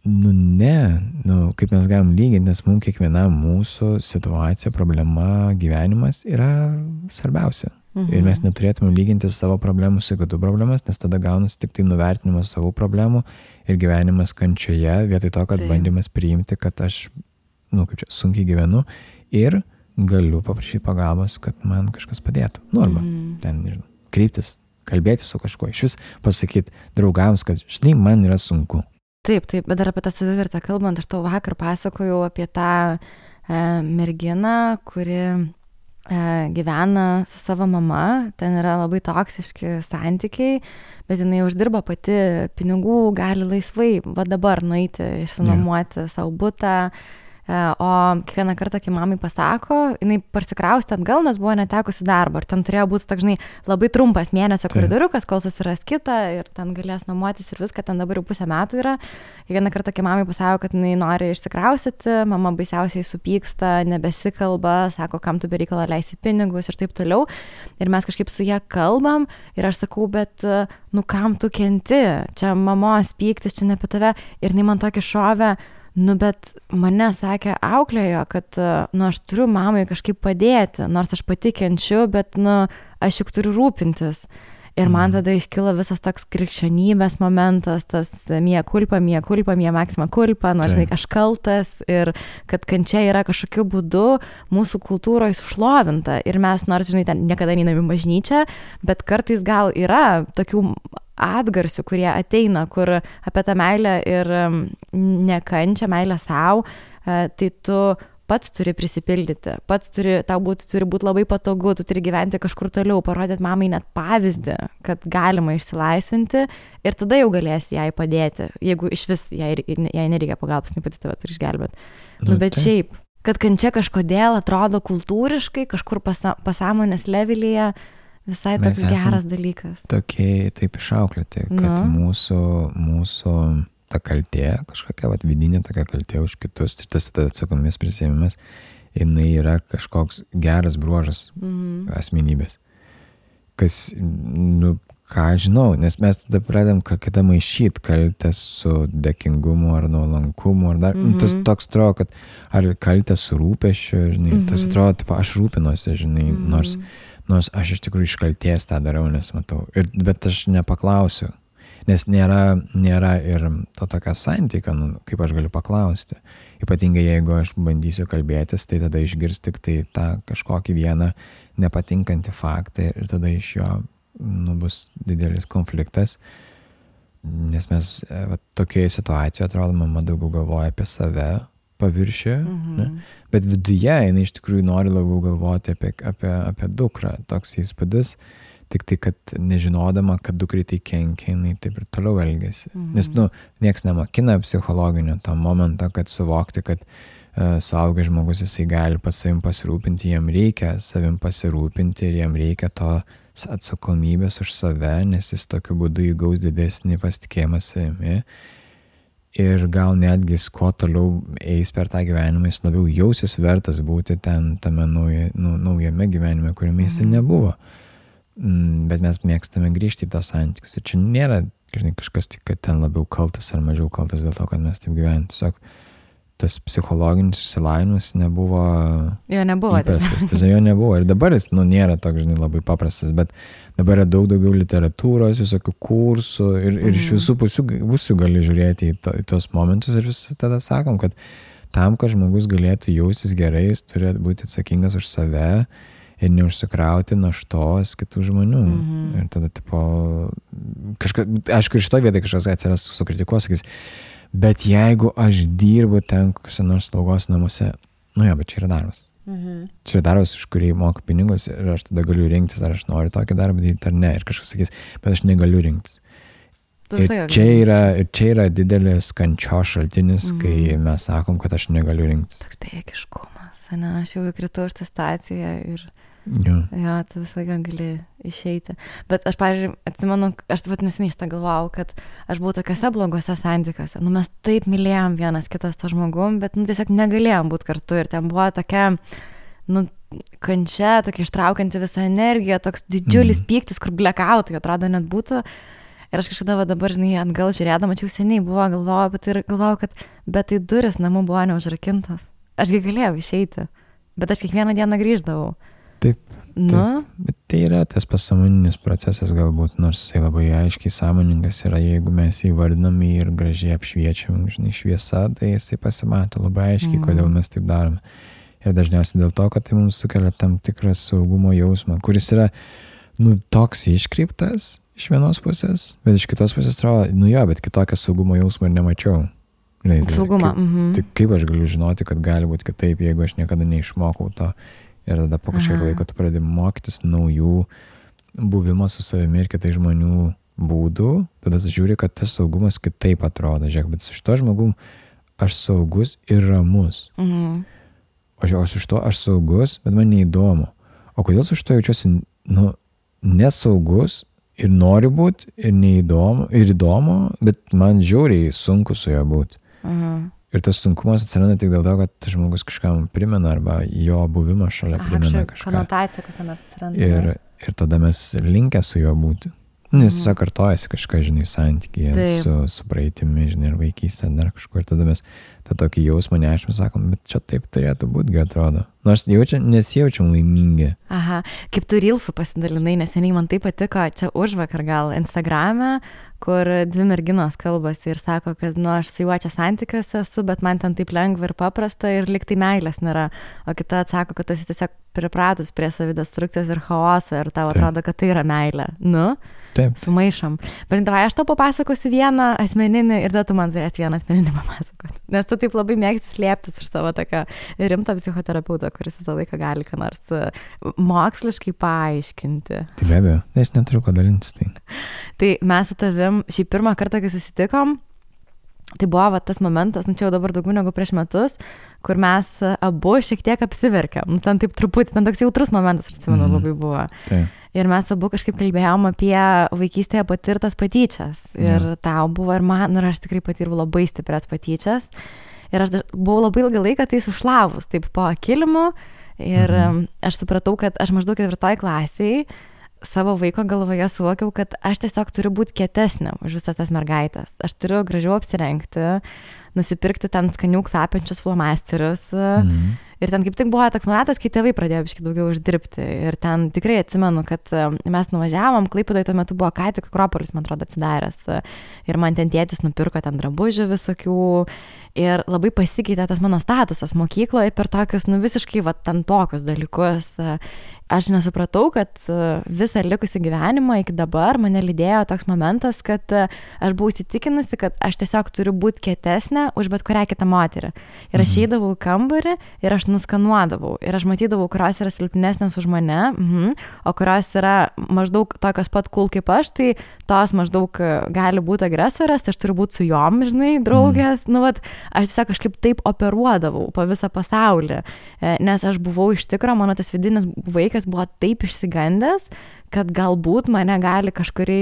Speaker 1: kaip mes galim lyginti, nes mums kiekvienam mūsų situacija, problema, gyvenimas yra svarbiausia. Ir mes neturėtume lyginti savo problemų su kitų problemas, nes tada gaunasi tik tai nuvertinimas savo problemų ir gyvenimas kančioje, vietoj to, kad bandymas priimti, kad aš, sunkiai gyvenu ir galiu paprašyti pagalbos, kad man kažkas padėtų. Arba ten, nežinau, kreiptis, kalbėti su kažkuo, iš vis pasakyti draugams, kad žinai, man yra sunku.
Speaker 2: Taip, bet dar apie tą savivertę kalbant, aš tau vakar pasakojau apie tą merginą, kuri gyvena su savo mama, ten yra labai toksiški santykiai, bet jinai uždirba pati pinigų, gali laisvai, va dabar nueiti, išsinuomoti savo butą, o kiekvieną kartą, kai mamai pasako, jinai parsikraustė atgal, nes buvo netekusi darbo. Ir ten turėjo būti, žinai, labai trumpas mėnesio koridoriukas, kol susiras kitą ir ten galės nuomotis ir viską, ten dabar jau 5 metų yra. Kiekvieną kartą, kai mamai pasako, kad jinai nori išsikraustyti, mama baisiausiai supyksta, nebesikalba, sako, kam tu be reikalo leisi pinigus ir taip toliau. Ir mes kažkaip su ją kalbam ir aš sakau, bet kam tu kenti? Čia mamos pyktis, čia ne apie tave. Ir jinai man tokį šovę, bet mane sakė auklėjo, kad, aš turiu mamai kažkaip padėti, nors aš pati kenčiu, bet, aš juk turiu rūpintis. Ir man tada iškilo visas toks krikščionybės momentas, tas mia culpa, maxima culpa, žinai, aš kaltas ir kad kančia yra kažkokiu būdu mūsų kultūroje sušlovinta. Ir mes, nors, žinai, ten niekada neinam į bažnyčią, bet kartais gal yra tokių atgarsių, kurie ateina, kur apie tą meilę ir nekančią, meilę savo, tai tu pats turi prisipildyti, tau turi būti labai patogu, tu turi gyventi kažkur toliau, parodyti mamai net pavyzdį, kad galima išsilaisvinti ir tada jau galėsi jai padėti, jeigu iš vis jai nereikia pagalbos, ne pati tave turi išgelbėti. Bet šiaip, kad kančia kažkodėl atrodo kultūriškai, kažkur pasąmonės levelyje, visai toks geras dalykas.
Speaker 1: Tokie taip išauklėti, kad mūsų ta kaltė, kažkokia vidinė tokia kaltė už kitus, ir tas atsakomybės prisiėmimas, jinai yra kažkoks geras bruožas asmenybės. Kas, ką žinau, nes mes tada pradedam kada maišyti kaltę su dėkingumu ar nuolankumu, ar dar, tas toks atrodo, kad ar kaltę su rūpesčiu, žinai, tas atrodo, tipo, aš rūpinuosi, žinai, nors aš iš tikrųjų iš kaltės tą darau, nes matau, bet aš nepaklausiu, nes nėra ir to tokio santykio, kaip aš galiu paklausti. Ypatingai jeigu aš bandysiu kalbėtis, tai tada išgirs tik tai tą kažkokį vieną nepatinkantį faktą ir tada iš jo bus didelis konfliktas, nes mes tokioje situacijoje, atrodo, mama daugiau galvoja apie save paviršių, bet viduje jinai iš tikrųjų nori labiau galvoti apie dukrą, toks įspūdis, tik tai, kad nežinodama, kad dukrai tai kenkia, jinai taip ir toliau elgiasi. Nes, nieks nemokina psichologinio to momento, kad suvokti, kad suaugęs žmogus jisai gali pas savim pasirūpinti, jam reikia savim pasirūpinti ir jam reikia to atsakomybės už save, nes jis tokiu būdu įgaus didesnį pasitikėjimą savimi ir gal netgi kuo toliau eis per tą gyvenimą, jis labiau jausis vertas būti ten tame naujame gyvenime, kuriame jis nebuvo. Bet mes mėgstame grįžti į tos santykius. Ir čia nėra, žinai, kažkas tik, kad ten labiau kaltas ar mažiau kaltas dėl to, kad mes taip gyvename. Tiesiog tas psichologinis išsilavinimas nebuvo įprastas. Tiesiog jo nebuvo. Ir dabar jis, nėra toks, žinai, labai paprastas, bet dabar yra daug daugiau literatūros, visokių kursų ir iš visų pusių gali žiūrėti į tos momentus ir vis tada sakom, kad tam, kad žmogus galėtų jaustis gerai, jis turi būti atsakingas už save ir neužsikrauti naštos kitų žmonių. Ir tada, tipo, aišku, iš to vietoj kažkas atsiras sukritikuos, sakys, bet jeigu aš dirbu ten kokiuose nors slaugos namuose, bet čia yra darbas. Čia yra darbas, už kurį moku pinigus ir aš tada galiu rinktis, ar aš noriu tokį darbą daryti ar ne. Ir kažkas sakys, bet aš negaliu rinktis. Ir čia yra didelis kančios šaltinis, kai mes sakom, kad aš negaliu rinktis.
Speaker 2: Toks bejėgiškumas, ne, aš jau įkritau iš tą staciją ir tu visą laiką gali išeiti. Bet aš, pavyzdžiui, atsimenu, aš taip neseniai šitą galvojau, kad aš buvau tokiuose blogose santykiuose. Mes taip mylėjom vienas kitas to žmogum, bet tiesiog negalėjom būti kartu. Ir ten buvo tokia, kančia, tokia ištraukianti visą energiją, toks didžiulis pyktis, kur blackoutai atrodo net būtų. Ir aš kažkada dabar, žinai, atgal žiūrėdama, čia jau seniai buvo, galvojau, kad bet tai duris namų buvo neužrakintas. Ašgi galėjau išeiti, bet aš kiekvieną dieną grįždavau.
Speaker 1: Taip. Bet tai yra tas pasąmoninis procesas galbūt, nors jisai labai aiškiai sąmoningas yra, jeigu mes jį vardinam ir gražiai apšviečiam, žinai, šviesa, tai jisai pasimato labai aiškiai, kodėl mes taip darome. Ir dažniausiai dėl to, kad tai mums sukelia tam tikrą saugumo jausmą, kuris yra, toks iškreiptas iš vienos pusės, bet iš kitos pusės atrodo, bet kitokio saugumo jausmo ir nemačiau.
Speaker 2: Saugumą.
Speaker 1: Tai kaip aš galiu žinoti, kad gali būti kitaip, jeigu aš niekada neišmokau to. Ir tada po kažkiek laiko tu pradedi mokytis naujų buvimo su savimi ir kitai žmonių būdų, tada žiūri, kad tas saugumas kitaip atrodo. Žiūrėk, bet su šito žmogum aš saugus ir ramus. O su šito aš saugus, bet man neįdomu. O kodėl su šito jaučiuosi nesaugus ir noriu būti ir neįdomu, ir įdomu, bet man žiauriai sunku su juo būti. Ir tas sunkumas atsiranda tik dėl to, kad žmogus kažkam primena arba jo buvimas šalia primena kažką.
Speaker 2: Konotacija kokia nors atsiranda.
Speaker 1: Ir tada mes linkę su juo būti. Nes tiesiog kartojasi kažką, žinai, santykyje su praeitimi, žinai, ir vaikystė, dar kažkur. Ir tada mes tą tokį jausmą nešim, sakom, bet čia taip turėtų būti, atrodo. Nors nesijaučiam laimingi.
Speaker 2: Kaip tu Reelsų pasidalinai, neseniai man tai patiko, čia užvakar gal Instagrame, kur dvi merginos kalbasi ir sako, kad aš su juo čia santykiuose esu, bet man ten taip lengva ir paprasta ir lyg tai meilės nėra. O kita atsako, kad esi tiesiog pripratus prie savidestrukcijos ir chaoso ir tau atrodo, kad tai yra meilė.
Speaker 1: Taip.
Speaker 2: Sumaišom. Bet davai, aš tau papasakosiu vieną asmeninį ir tada tu man turėsi vieną asmeninį papasakoti. Nes tu taip labai mėgsti slėptis iš savo tokio rimto psichoterapeuto, kuris visą laiką gali ką nors moksliškai paaiškinti.
Speaker 1: Tai be abejo, aš neturiu ko dalintis tai.
Speaker 2: Tai mes su tavim šį pirmą kartą, kai susitikom, tai buvo tas momentas, čia jau dabar daugiau negu prieš metus, kur mes abu šiek tiek apsiverkėm. Ten taip truputį, ten toks jautrus momentas, aš atsimenu, labai buvo.
Speaker 1: Taip.
Speaker 2: Ir mes abu kažkaip kalbėjom apie vaikystėje patirtas patyčias. Ir tau buvo ir man, ir aš tikrai patirau labai stiprias patyčias. Ir aš buvau labai ilgą laiką tai sušlavus, taip po kilimu. Ir aš supratau, kad aš maždaug 4 klasėje savo vaiko galvoje suvokiau, kad aš tiesiog turiu būti kietesnė už visas tas mergaitės. Aš turiu gražiau apsirengti, nusipirkti ten skanių kvepiančius flomasterius. Ir ten kaip tik buvo toks momentas, kai tėvai pradėjo biškai daugiau uždirbti. Ir ten tikrai atsimenu, kad mes nuvažiavom, Klaipėdoje tuo metu buvo ką tik Akropolis, man atrodo, atsidaręs. Ir man ten tėtis nupirko ten drabužių visokių. Ir labai pasikeitė tas mano statusas mokykloje per tokius, visiškai ten tokius dalykus. Aš nesupratau, kad visą likusį gyvenimą iki dabar mane lydėjo toks momentas, kad aš buvau įsitikinusi, kad aš tiesiog turiu būti kietesnė už bet kurią kitą moterį. Ir aš eidavau į kambarį ir aš nuskanuodavau. Ir aš matydavau, kurios yra silpnesnės už mane, o kurios yra maždaug tokios pat cool kaip aš, tai tos maždaug gali būti agresorės, tai aš turiu būti su jom, žinai, draugės. Aš tiesiog kažkaip taip operuodavau po visą pasaulį, nes aš buvau iš tikro, mano tas vidinis vaikas buvo taip išsigandęs, kad galbūt mane gali kažkurį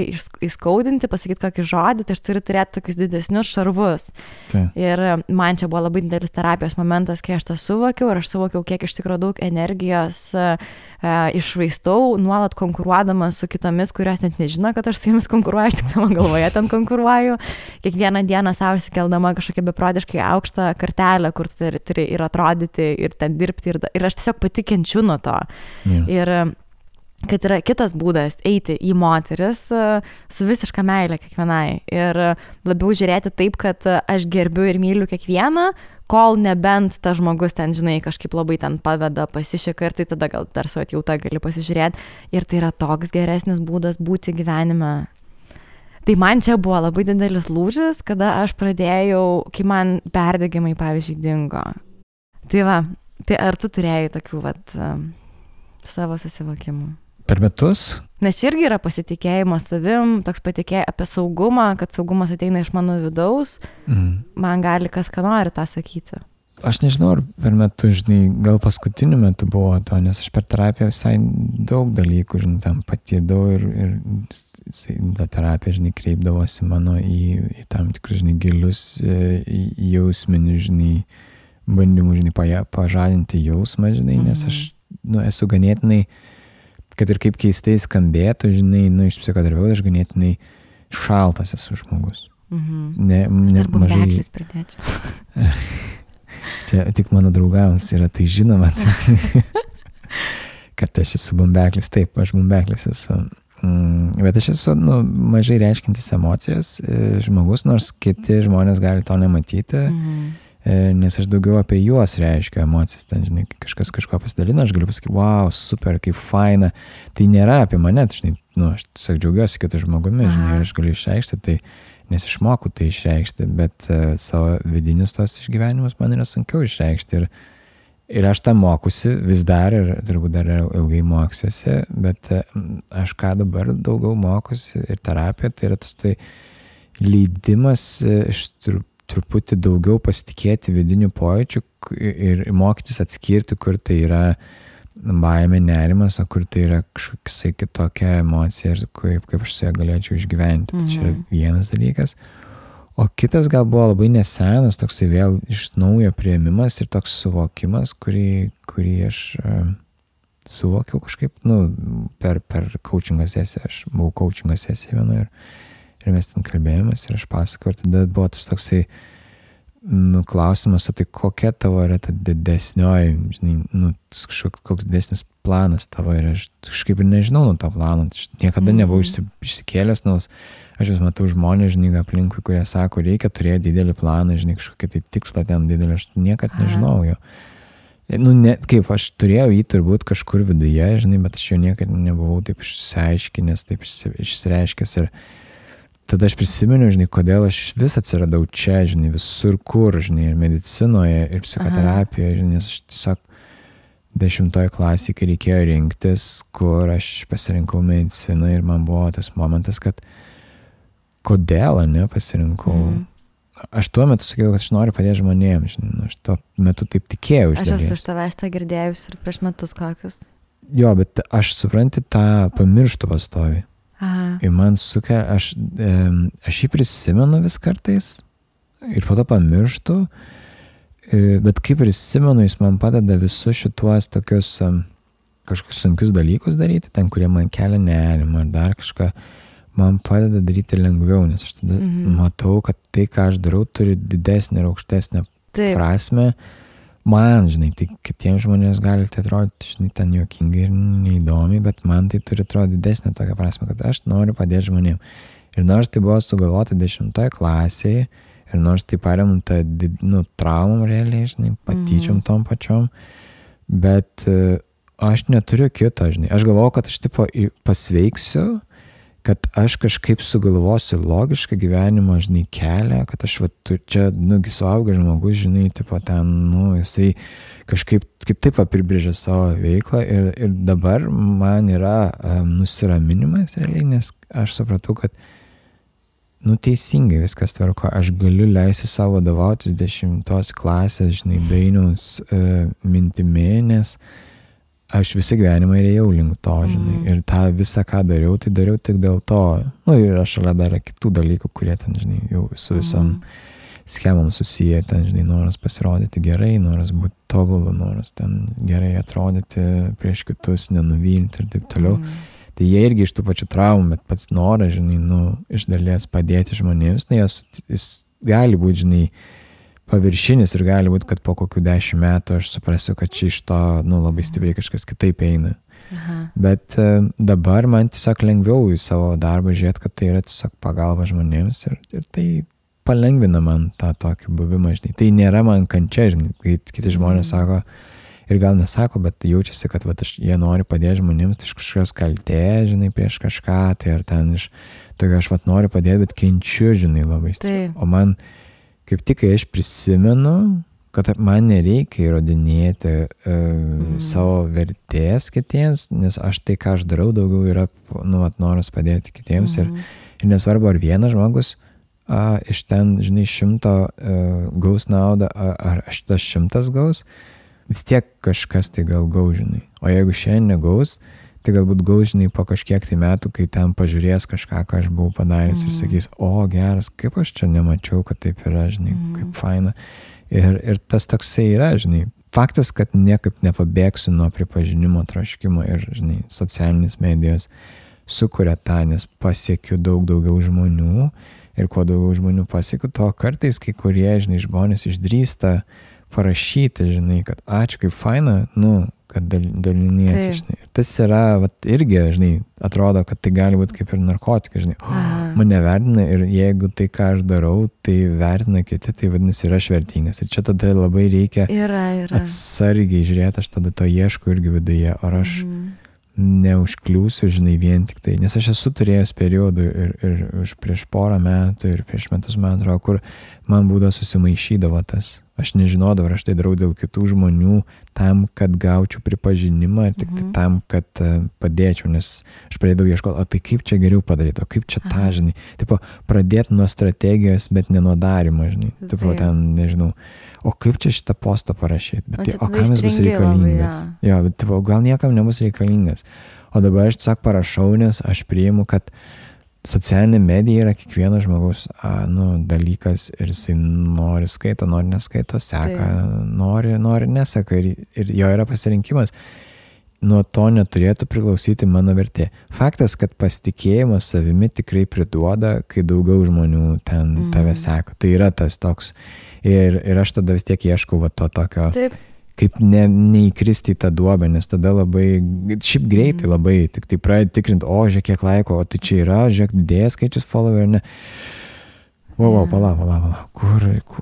Speaker 2: įskaudinti, pasakyti kokį žodį, tai aš turiu turėti tokius didesnius šarvus. Tai. Ir man čia buvo labai didelis terapijos momentas, kai aš tą suvokiau ir aš suvokiau, kiek iš tikrųjų daug energijos iššvaistau, nuolat konkuruodama su kitomis, kurios net nežino, kad aš su jomis konkuruoju, aš tik savo galvoje ten konkuruoju. Kiekvieną dieną savo išsikeldama kažkokią beprotiškai aukštą kartelę, kur turi ir atrodyti, ir ten dirbti, ir aš tiesiog pati kenčiu nuo to. Yeah. Ir kad yra kitas būdas eiti į moteris su visiška meile kiekvienai ir labiau žiūrėti taip, kad aš gerbiu ir myliu kiekvieną, kol nebent tas žmogus ten, žinai, kažkaip labai ten paveda, pasišika ir tai tada gal dar su atjauta gali pasižiūrėti ir tai yra toks geresnis būdas būti gyvenime. Tai man čia buvo labai didelis lūžis, kada aš pradėjau, kai man perdegimai, pavyzdžiui, dingo. Tai va, tai ar tu turėjai tokių savo susivokimų?
Speaker 1: Per metus?
Speaker 2: Nes čia irgi yra pasitikėjimas savim, toks patikėjimas apie saugumą, kad saugumas ateina iš mano vidaus, man gali kas ką nori tą sakyti.
Speaker 1: Aš nežinau, ar per metus, žinai, gal paskutiniu metu buvo to, nes aš per terapiją visai daug dalykų, žinai, tam patydau ir ta terapija, žinai, kreipdavosi mano į tam tikrus, žinai, gilius jausminius, žinai, bandymų, žinai, pažadinti jausmą, žinai, nes aš, esu ganėtinai, kad ir kaip keistai skambėtų, žinai, iš psichoterapeuto aš ganėtinai šaltas esu žmogus.
Speaker 2: Aš dar bumbeklis pridėčiau.
Speaker 1: Čia tik mano draugams yra tai žinoma, kad aš esu bumbeklis. Taip, aš bumbeklis esu. Bet aš esu mažai reiškintis emocijas žmogus, nors kiti žmonės gali to nematyti. Nes aš daugiau apie juos reiškiu emocijas, ten, žinai, kažkas kažko pasidalina, aš galiu pasakyti, wow, super, kaip faina, tai nėra apie mane, tai, žinai, aš tiesiog džiaugiuosi kitų žmogumi, žinai, ir aš galiu išreikšti, tai, nes išmoku tai išreikšti, bet savo vidinius tos išgyvenimus man yra sunkiau išreikšti ir aš tą mokusi vis dar ir turbūt dar ilgai moksiuosi, bet aš ką dabar daugiau mokusi ir terapija, tai yra tas tai leidimas iš truputį daugiau pasitikėti vidinių pojūčių ir mokytis atskirti, kur tai yra baimė, nerimas, o kur tai yra kažkokia kitokia emocija ir kaip aš su ją galėčiau išgyventi. Tai čia yra vienas dalykas. O kitas gal buvo labai nesenas, toksai vėl iš naujo priėmimas ir toks suvokimas, kurį aš suvokiau kažkaip, per coachingo sesiją. Aš buvau coachingo sesiją vienoje ir mes ten kalbėjomės ir aš pasakau, ir tada buvo tas toksai klausimas, o tai kokia tavo yra ta didesnioji, žinai, koks didesnis planas tavo ir aš kažkaip ir nežinau nuo to plano, aš niekada nebuvau išsikėlęs, nes aš vis matau žmonės, žinai, aplinkui, kurie sako, reikia turėti didelį planą, žinai, kažkokį tai tikslą ten didelį, aš niekad nežinau jo. Kaip aš turėjau jį turbūt kažkur viduje, žinai, bet aš jo niekad nebuvau taip išsiaiškinęs, taip išsireiškęs ir tada aš prisimenu, žinai, kodėl aš vis atsiradau čia, žinai, visur kur, žinai, ir medicinoje, ir psichoterapijoje, žinai, nes aš tiesiog 10 klasėje, kai reikėjo rinktis, kur aš pasirinkau mediciną ir man buvo tas momentas, kad kodėl, pasirinkau. Aš tuo metu sakiau, kad aš noriu padėti žmonėms, žinai, aš tuo metu taip tikėjau iš dalies.
Speaker 2: Aš esu iš tavęs tą girdėjus ir prieš metus kokius.
Speaker 1: Jo, bet aš supranti tą pamirštu pastovi. Ir man sukia, aš jį prisimenu vis kartais ir po to pamirštu, bet kaip prisimenu, jis man padeda visus šituos tokius kažkokius sunkius dalykus daryti, ten, kurie man kelia nerimą ar dar kažką, man padeda daryti lengviau, nes aš tada matau, kad tai, ką aš darau, turi didesnę ir aukštesnę prasme. Man, žinai, tai kitiems žmonės gali tai atrodyti, žinai, ten juokingai ir neįdomiai, bet man tai turi atrodyti didesnę tokią prasme, kad aš noriu padėti žmonėm. Ir nors tai buvo sugalvota 10 klasėje, ir nors tai paremta, traumom realiai, žinai, patyčiom tom pačiom, bet aš neturiu kito, žinai. Aš galvoju, kad aš tipo pasveiksiu, kad aš kažkaip sugalvosiu logišką gyvenimą, žinai, kelią, kad aš čia, suaugęs žmogus, žinai, tipo ten, jisai kažkaip kitaip apibrėžia savo veiklą ir dabar man yra nusiraminimas realiai, nes aš supratau, kad teisingai viskas tvarko, aš galiu leisti savo vadovautis 10 klasės, žinai, Dainiaus mintimi, nes aš visą gyvenimą ėjau link to, žinai, ir tą visą, ką dariau, tai dariau tik dėl to. Ir aš šalia dar kitų dalykų, kurie ten, žinai, jau su visom schemom susiję, ten, žinai, noras pasirodyti gerai, noras būti tobulu, noras ten gerai atrodyti prieš kitus, nenuvilti ir taip toliau. Tai jie irgi iš tų pačių traumų, bet pats noras, žinai, iš dalies padėti žmonėms, jis gali būti, žinai, paviršinis ir gali būti, kad po kokių 10 metų aš suprasiu, kad čia iš to, labai stipriai kažkas kitaip eina. Bet dabar man tiesiog lengviau į savo darbą žiūrėti, kad tai yra tiesiog pagalba žmonėms ir tai palengvina man tą tokį buvimą, žinai. Tai nėra man kančia, žinai, kai kiti žmonės sako, ir gal nesako, bet jaučiasi, kad jie nori padėti žmonėms, tai iš kažkokios kaltės, žinai, prieš kažką, tai ar ten iš tokio aš noriu padėti, bet kenčiu, žinai, labai stipriai. O man kaip tik, kai aš prisimenu, kad man nereikia įrodinėti savo vertės kitiems, nes aš tai, ką aš darau, daugiau yra, noras padėti kitiems ir nesvarbu, ar vienas žmogus iš ten, žinai, 100 gaus naudą, ar aš tas 100 gaus, vis tiek kažkas tai gal gaus, žinai. O jeigu šiandien negaus, tai galbūt gaus, žinai, po kažkiek tai metų, kai ten pažiūrės kažką, ką aš buvau padaręs ir sakys, geras, kaip aš čia nemačiau, kad taip yra, žinai, kaip faina. Ir tas toksai yra, žinai, faktas, kad niekaip nepabėgsiu nuo pripažinimo troškimo ir, žinai, socialinės medijos sukuria tą, nes pasiekiu daug daugiau žmonių ir kuo daugiau žmonių pasiekiu, to kartais kai kurie, žinai, žmonės išdrįsta parašyti, žinai, kad ačiū, kaip faina, kad daliniesi, žinai. Tas yra, irgi, žinai, atrodo, kad tai gali būti kaip ir narkotikai, žinai. Mane vertina ir jeigu tai, ką aš darau, tai vertina kiti, tai vadinasi, yra aš vertingas. Ir čia tada labai reikia atsargiai žiūrėti, aš tada to ieškau irgi viduje, ar aš neužkliūsiu, žinai, vien tik tai. Nes aš esu turėjęs periodų ir prieš porą metų ir prieš metus, man atrodo, kur man būdavo susimaišydavo tas. Aš nežinodavau, ar aš tai darau dėl kitų žmonių, tam, kad gaučiau pripažinimą, tik tai tam, kad padėčiau, nes aš pradėjau ieškoti, o tai kaip čia geriau padaryti, o kaip čia tą, žinai. Tipo, pradėti nuo strategijos, bet ne nuo darimo, žinai. Tipo, ten, nežinau, o kaip čia šitą postą parašyti, bet o kam jis bus reikalingas. Jo, bet tipo, gal niekam nebus reikalingas. O dabar aš tiesiog parašau, nes aš priimu, kad socialinė medija yra kiekvieno žmogaus dalykas ir jisai nori skaito, nori neskaito, seka, nori neseka ir jo yra pasirinkimas. Nuo to neturėtų priklausyti mano vertė. Faktas, kad pasitikėjimas savimi tikrai priduoda, kai daugiau žmonių ten tave seka. Tai yra tas toks. Ir aš tada vis tiek ieškau to tokio. Taip. Kaip neįkristi į tą duobę, nes tada labai, šiaip greitai labai, tik tai pradedi tikrinti, žiūrėk, kiek laiko, o tai čia yra, žiūrėk, didėja skaičius follower, ne. Pala,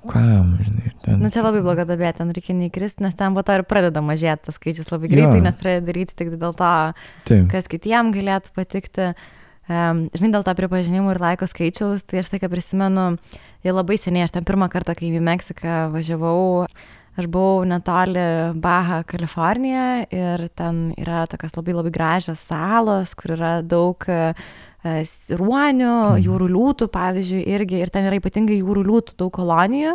Speaker 1: kam, žinai.
Speaker 2: Čia labai bloga dabė, ten reikia neįkristi, nes ten po to ir pradeda mažėti tas skaičius labai greitai, nes pradeda daryti tik dėl to, kas kitiem galėtų patikti. Žinai, dėl to pripažinimų ir laiko skaičiaus, tai aš tai, ką prisimenu, jau labai seniai, aš ten pirmą kartą, kai į Meksiką važiavau, aš buvau netoli Baja, Kalifornija ir ten yra tokios labai labai gražios salos, kur yra daug ruonių, jūrų liūtų, pavyzdžiui, irgi, ir ten yra ypatingai jūrų liūtų daug kolonijų.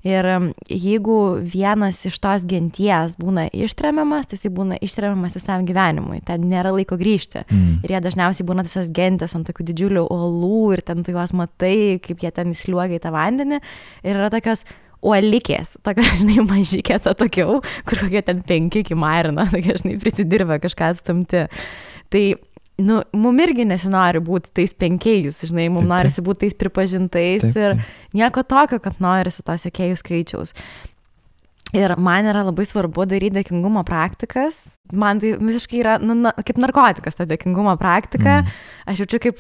Speaker 2: Ir jeigu vienas iš tos genties būna ištremiamas, tai jis būna ištremiamas visam gyvenimui. Ten nėra laiko grįžti. Ir jie dažniausiai būna visas gentės ant tokių didžiulių uolų ir ten tu juos matai, kaip jie ten įsliuogia į tą vandenį. Ir yra tokios uolikės, tokia, žinai, mažykės atokiau, kur kokie ten 5 iki marino, tokia, žinai, prisidirbę kažką atstumti. Tai, mum irgi nesinori būti tais 5, žinai, mum norisi būti tais pripažintais ir nieko tokio, kad norisi to sekėjų skaičiaus. Ir man yra labai svarbu daryti dėkingumo praktikas. Man tai visiškai yra kaip narkotikas ta dėkingumo praktika. Aš jaučiu, kaip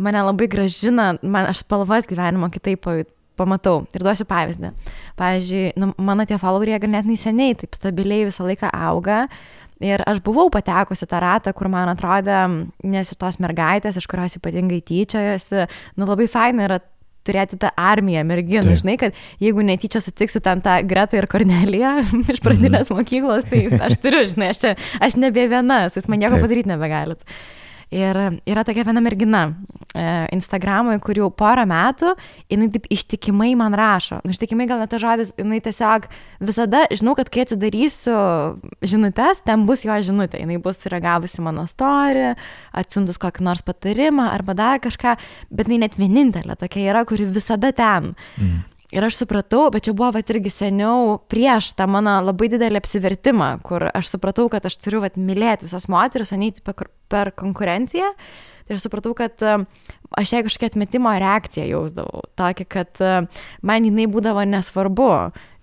Speaker 2: mane labai gražina, aš spalvas gyvenimo kitaip pamatau. Ir duosiu pavyzdį. Pavyzdžiui, mano tie followeriai ganėtinai seniai, taip stabiliai visą laiką auga. Ir aš buvau patekusi tą ratą, kur man atrodė, nes ir tos mergaitės, iš kurios ypatingai tyčiojasi, labai faina yra turėti tą armiją merginų, žinai, kad jeigu netyčia sutiksiu ten tą Gretą ir Korneliją iš pradinės mokyklos, tai aš turiu, žinai, aš nebe viena, jūs man nieko padaryti nebegalit. Ir yra tokia viena mergina Instagramui, kur jau 4 metų, jinai taip ištikimai man rašo. Ištikimai gal net tas žodis, jinai tiesiog visada, žinau, kad kai atsidarysiu žinutes, ten bus jo žinutė. Jinai bus reagavusi mano story, atsiuntus kokį nors patarimą arba dar kažką, bet jinai net vienintelė tokia yra, kuri visada ten. Ir aš supratau, bet čia buvo irgi seniau prieš tą mano labai didelį apsivertimą, kur aš supratau, kad aš turiu mylėti visas moteris, o neiti per konkurenciją. Tai aš supratau, kad aš jai kažkokią atmetimo reakciją jausdavau. Tokį, kad man jinai būdavo nesvarbu.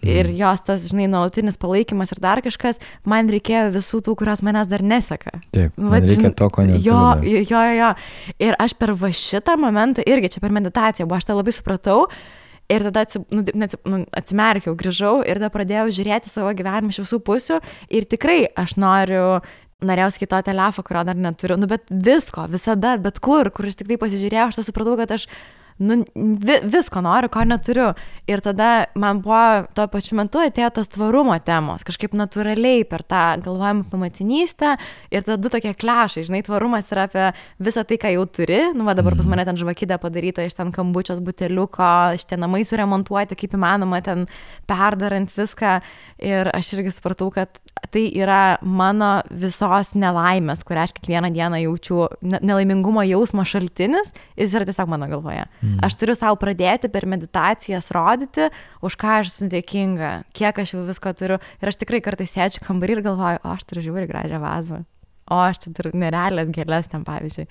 Speaker 2: Ir jos tas, žinai, nuolatinis palaikymas ir dar kažkas, man reikėjo visų tų, kurios manęs dar neseka.
Speaker 1: Taip, man reikia to, ko neturiu.
Speaker 2: Jo. Ir aš per šitą momentą, irgi čia per meditaciją, aš tą labai supratau. Ir tada atsimerkiau, grįžau ir tada pradėjau žiūrėti savo gyvenimą iš visų pusių ir tikrai aš norėjau sakyti to telefą, kurio dar neturiu, bet visko, visada, bet kur aš tik tai pasižiūrėjau, aš supratau, kad aš visko noriu, ko neturiu. Ir tada man buvo tuo pačiu metu atėjo tos tvarumo temos, kažkaip natūraliai per tą galvojimą apie motinystę ir tada 2 tokie klešai, žinai, tvarumas yra apie visą tai, ką jau turi, dabar pas mane ten žvakidė padaryta iš ten kambučios buteliuko, šitie namai suremontuoti, kaip įmanoma, ten perdarant viską. Ir aš irgi supratau, kad tai yra mano visos nelaimės, kurią aš kiekvieną dieną jaučiu, nelaimingumo jausmo šaltinis, jis yra tiesiog mano galvoje. Aš turiu savo pradėti per meditacijas rodyti, už ką aš esu dėkinga, kiek aš jau visko turiu. Ir aš tikrai kartais sėdžiu kambarį ir galvoju, aš turiu žiūri gražią vazą, aš čia turiu nerealias gėlės ten, pavyzdžiui.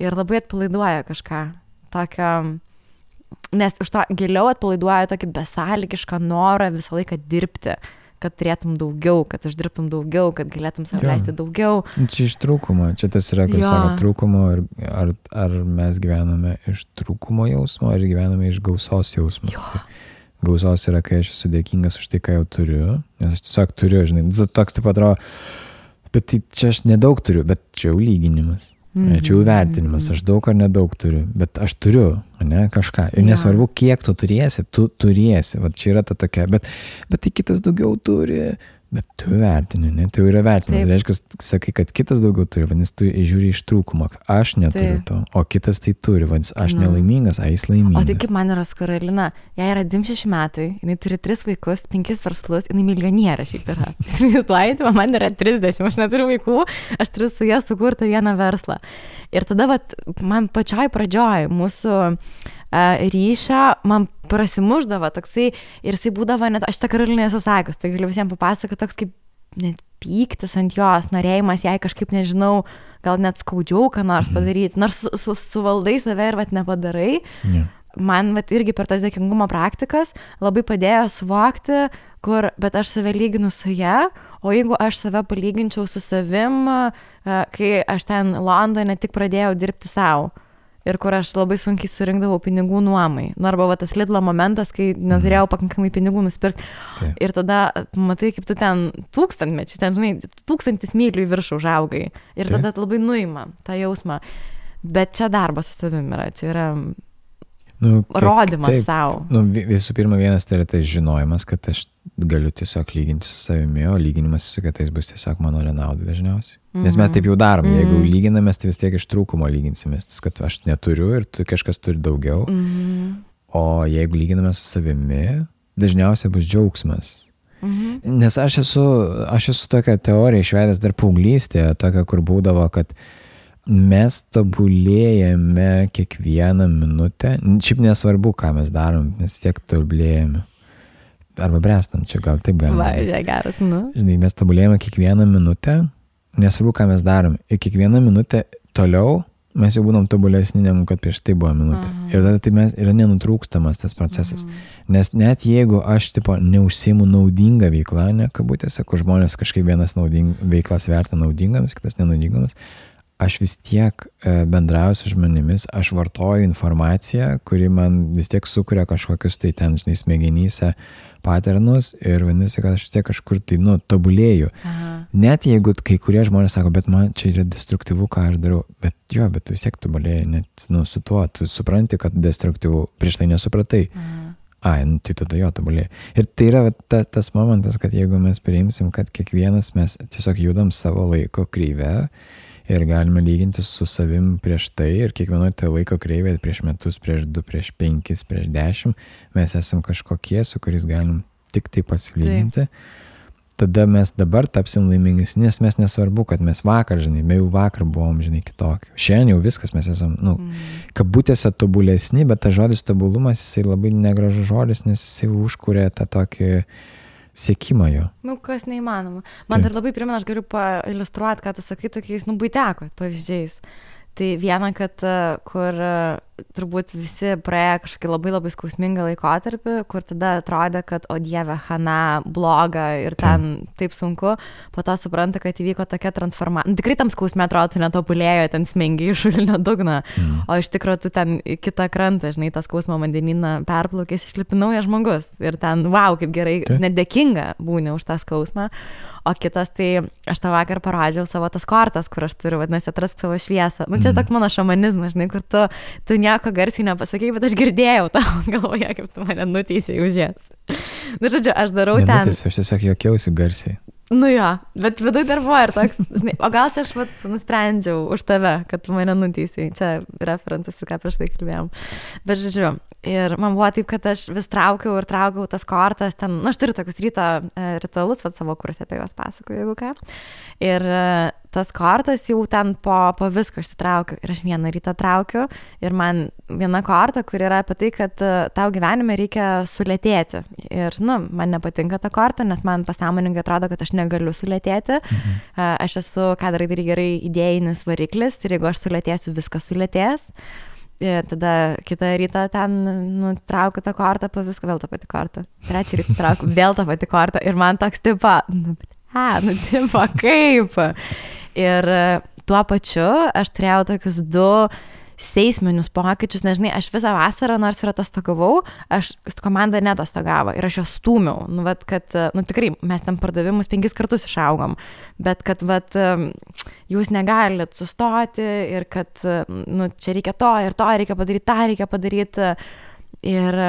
Speaker 2: Ir labai atpalaiduoja kažką tokio, nes už to giliau atpalaiduoja tokį besąlygišką norą visą laiką dirbti, kad turėtum daugiau, kad uždirbtum daugiau, kad galėtum save leisti daugiau.
Speaker 1: Čia iš trūkumo, čia tas yra, kai sako trūkumo, ar mes gyvename iš trūkumo jausmo, ar gyvename iš gausos jausmo. Tai gausos yra, kai aš esu dėkingas už tai, ką jau turiu, nes aš tiesiog turiu, žinai, toks taip atrodo, bet tai čia aš nedaug turiu, bet čia jau lyginimas. Čia jau vertinimas, aš daug ar nedaug turiu, bet aš turiu, ne, kažką. Ir nesvarbu, kiek tu turėsi, va čia yra ta tokia, bet tai kitas daugiau turi, bet tu vertini, ne, tai jau yra vertinimas. Reiškia, sakai, kad kitas daugiau turi, vadinasi, tu žiūri iš trūkumo, aš neturiu to, o kitas tai turi, vadinasi, aš nelaimingas, jis laimingas.
Speaker 2: O tai kaip man yra su Karolina, jai yra 26 metai, jinai turi 3 vaikus, 5 verslus, jinai milijonierė šiaip yra. Man yra 30, aš neturiu vaikų, aš turiu su jie sukurti vieną verslą. Ir tada man pačioj pradžioj mūsų ryšio, man prasimuždavo toksai ir jisai būdavo net, aš tą Karolinai esu sakius, tai galiu visiems papasakoti, toks kaip net pyktis ant jos, norėjimas jai kažkaip, nežinau, gal net skaudžiau ką nors padaryti, nors suvaldai save ir nepadarai. Man irgi per tas dėkingumo praktikas labai padėjo suvokti, bet aš save lyginu su ja, o jeigu aš save palyginčiau su savim, kai aš ten Londone tik pradėjau dirbti savo. Ir kur aš labai sunkiai surinkdavau pinigų nuomai. Arba tas Lidlo momentas, kai neturėjau pakankamai pinigų nusipirkti. Ir tada matai, kaip tu ten 1000 mečiai, ten, žinai, 1000 mylių į viršų užaugai. Ir tada labai nuima tą jausmą. Bet čia darbas su savimi yra, čia yra rodymas savo.
Speaker 1: Visų pirma, vienas tai yra tas žinojimas, kad aš galiu tiesiog lyginti su savimi, o lyginimas su kitais bus tiesiog mano nenaudai dažniausiai. Nes mes taip jau darom, jeigu lyginamės, tai vis tiek iš trūkumo lyginsimės, kad aš neturiu ir kažkas turi daugiau, o jeigu lyginame su savimi, dažniausiai bus džiaugsmas. Nes aš esu tokią teoriją išvedęs dar paauglystėje, tokią, kur būdavo, kad mes tobulėjame kiekvieną minutę, šiaip nesvarbu, ką mes darom, mes tiek tobulėjame. arba brestam, čia gal taip galima.
Speaker 2: Va, geras, nu.
Speaker 1: Žinai, mes tobulėjame kiekvieną minutę, nesvarbu, ką mes darom. Ir kiekvieną minutę toliau mes jau būnam tobulesni, negu kad prieš tai buvo minutė. Ir tada tai yra nenutrūkstamas tas procesas. Nes net jeigu aš, tipo, neužsiimu naudingą veiklą, ne kabutėse, kur žmonės kažkaip vienas veiklas verta naudingamis, kitas nenaudingamis, aš vis tiek bendrauju su žmonėmis, aš vartoju informaciją, kuri man vis tiek sukuria kažkokius tai ten, žinai, smegenyse paternus ir vadinasi, kad aš vis tiek kažkur tai, tobulėju. Net jeigu kai kurie žmonės sako, bet man čia yra destruktyvu, ką aš darau, bet tu vis tiek tobulėjai, net, su tuo, tu supranti, kad destruktyvu, prieš tai nesupratai. Tai tada jo tobulėjai. Ir tai yra tas momentas, kad jeigu mes priimsim, kad kiekvienas mes tiesiog judam savo laiko kreivę, ir galime lyginti su savim prieš tai ir kiekvienoje tai laiko kreivėje prieš metus, prieš 2, prieš 5, prieš 10 mes esam kažkokie, su kuriais galim tik tai pasilyginti. Tada mes dabar tapsim laimingesni, nes mes nesvarbu, kad mes vakar, žinai, jau vakar buvom, žinai, kitokie. Šiandien jau viskas mes esam, kabutėse tobulesni, bet tas žodis tobulumas, jisai labai negražus žodis, nes jisai užkuria tą tokį siekimą jo.
Speaker 2: Kas neįmanoma. Man dar labai primena, aš galiu pailiustruoti, ką tu sakai, tokiais, buiteko pavyzdžiais. Tai viena, kad kur turbūt visi praėjo kažkokį labai labai skausmingą laikotarpį, kur tada atrodė, kad o dieve, chana, bloga ir ten taip sunku, po to supranta, kad įvyko tokia transformacija. Tikrai tam skausme atrodo, tu netobulėjo, ten smengi iš šulinio dugno, o iš tikrųjų tu ten į kitą krantą, žinai, tą skausmą vandenyną perplaukės, išlipi naujas žmogus ir ten, wow, kaip gerai, net dėkinga būni už tą skausmą. O kitas, tai aš tą vakar parodžiau savo tas kortas, kur aš turiu, vadinasi, atrask savo šviesą. Čia toks mano šamanizmas, žinai, kur tu nieko garsiai nepasakei, bet aš girdėjau tavo galvoje, kaip tu mane nuteisėjai už jas. Žodžiu, aš darau ten.
Speaker 1: Nenuteisėjau, aš tiesiog juokiausi garsiai.
Speaker 2: Jo, bet vidui dar buvo ir toks, žinai, o gal čia aš nusprendžiau už tave, kad tu mane nuteisėjai. Čia referencas, ką prieš tai kalbėjom. Bet žodžiu, ir man buvo taip, kad aš vis traukiau tas kortas, ten, aš turiu tokius ryto ritualus, savo kurse apie juos pasakoju, jeigu ką. Ir tas kortas jau ten po visko išsitraukiu. Ir aš vieną rytą traukiu ir man viena korta, kur yra apie tai, kad tau gyvenime reikia sulėtėti. Ir, man nepatinka ta korta, nes man pasąmoningai atrodo, kad aš negaliu sulėtėti. Aš esu, ką darai gerai, idėjinis variklis ir jeigu aš sulėtėsiu, viskas sulėtės. Ir tada kitą rytą ten traukiu tą kortą, po viską vėl tą patį kortą. Trečią rytą traukiu vėl tą patį kortą ir man toks tipo, tipo kaip. Ir tuo pačiu aš turėjau tokius 2 seisminius pokyčius, nežinai, aš visą vasarą, nors ir atostogavau, komanda netostogavo ir aš jos stūmiau, tikrai mes ten pardavimus 5 kartus išaugom, bet kad, jūs negalit sustoti ir kad, čia reikia to ir to reikia padaryti, tą reikia padaryti. Ir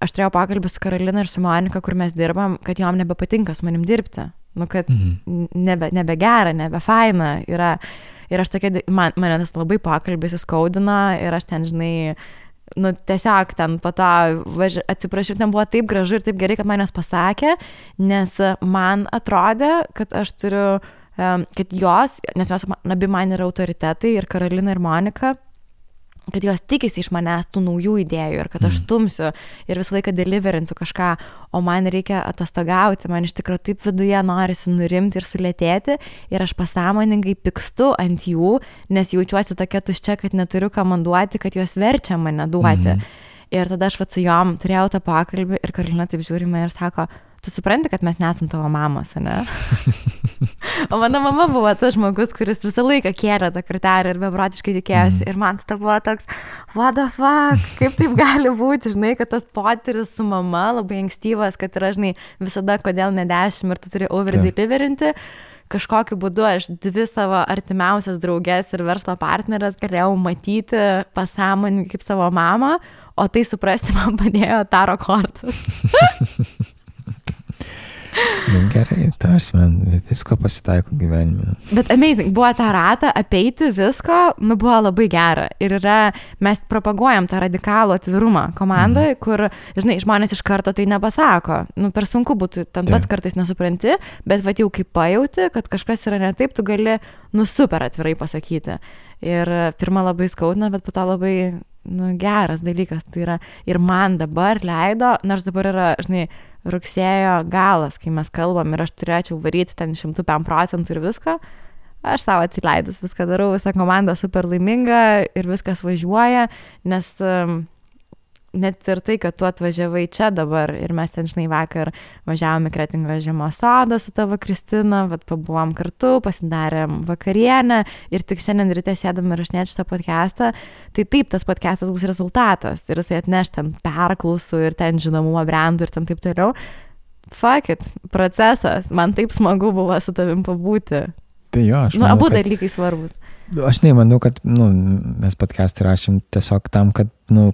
Speaker 2: aš turėjau pokalbį su Karolina ir su Monika, kur mes dirbam, kad jom nebepatinka su manim dirbti, kad nebegera, nebefaina yra. Ir aš tokia, mane tas labai pokalbis įskaudino ir aš ten, žinai, tiesiog ten po to atsiprašiau, ten buvo taip gražu ir taip gerai, kad manęs pasakė, nes man atrodė, kad aš turiu, kad jos, nes jos abi man yra autoritetai ir Karolina ir Monika, kad jos tikisi iš manęs tų naujų idėjų ir kad aš stumsiu ir visą laiką deliverinsiu kažką, o man reikia atostogauti, man iš tikrųjų taip viduje norisi nurimti ir sulėtėti ir aš pasąmoningai pykstu ant jų, nes jaučiuosi tokia tuščia, kad neturiu ką man duoti, kad jos verčia mane duoti. Ir tada aš su jom turėjau tą pokalbį ir Karolina taip žiūri mane ir sako, tu supranti, kad mes nesam tavo mamos, ne? O mano mama buvo tas žmogus, kuris visą laiką kėlė tą kartelę ir beprotiškai tikėjosi. Ir man tai buvo toks, what the fuck, kaip taip gali būti, žinai, kad tas potyris su mama labai ankstyvas, kad yra, žinai, visada kodėl ne 10 ir tu turi over-deliverinti. Kažkokiu būdu aš 2 savo artimiausias draugės ir verslo partnerės galėjau matyti pasąmoningai kaip savo mamą, o tai suprasti man padėjo taro kortas.
Speaker 1: Gerai, tas man visko pasitaiko gyvenime.
Speaker 2: Bet amazing, buvo tą ratą apeiti visko, buvo labai gera. Ir mes propaguojam tą radikalų atvirumą komandoje, kur, žinai, žmonės iš karto tai nepasako. Per sunku būtų, ten pats kartais nesupranti, bet jau kaip pajauti, kad kažkas yra ne taip, tu gali, super atvirai pasakyti. Ir pirmą labai skaudina, bet po to labai geras dalykas. Tai yra ir man dabar leido, nors dabar yra, žinai, rugsėjo galas, kai mes kalbam ir aš turėčiau varyti ten 105% ir viską, aš savo atsileidus viską darau, visa komanda super laiminga ir viskas važiuoja, nes net ir tai, kad tu atvažiavai čia dabar ir mes ten, žinai, vakar važiavome į Kretingos žiemos sodą su tavo Kristina, vat pabuvom kartu, pasidarėm vakarienę ir tik šiandien ryte sėdam ir rašinėti šitą podcastą, tai taip, tas podcastas bus rezultatas ir jisai atneš ten perklausų ir ten žinomumą brandų ir ten taip toliau. Fuck it, procesas, man taip smagu buvo su tavim pabūti.
Speaker 1: Tai jo, aš manau,
Speaker 2: abu dalykai svarbus.
Speaker 1: Aš nemanau, kad mes podcast'ą rašym tiesiog tam, kad,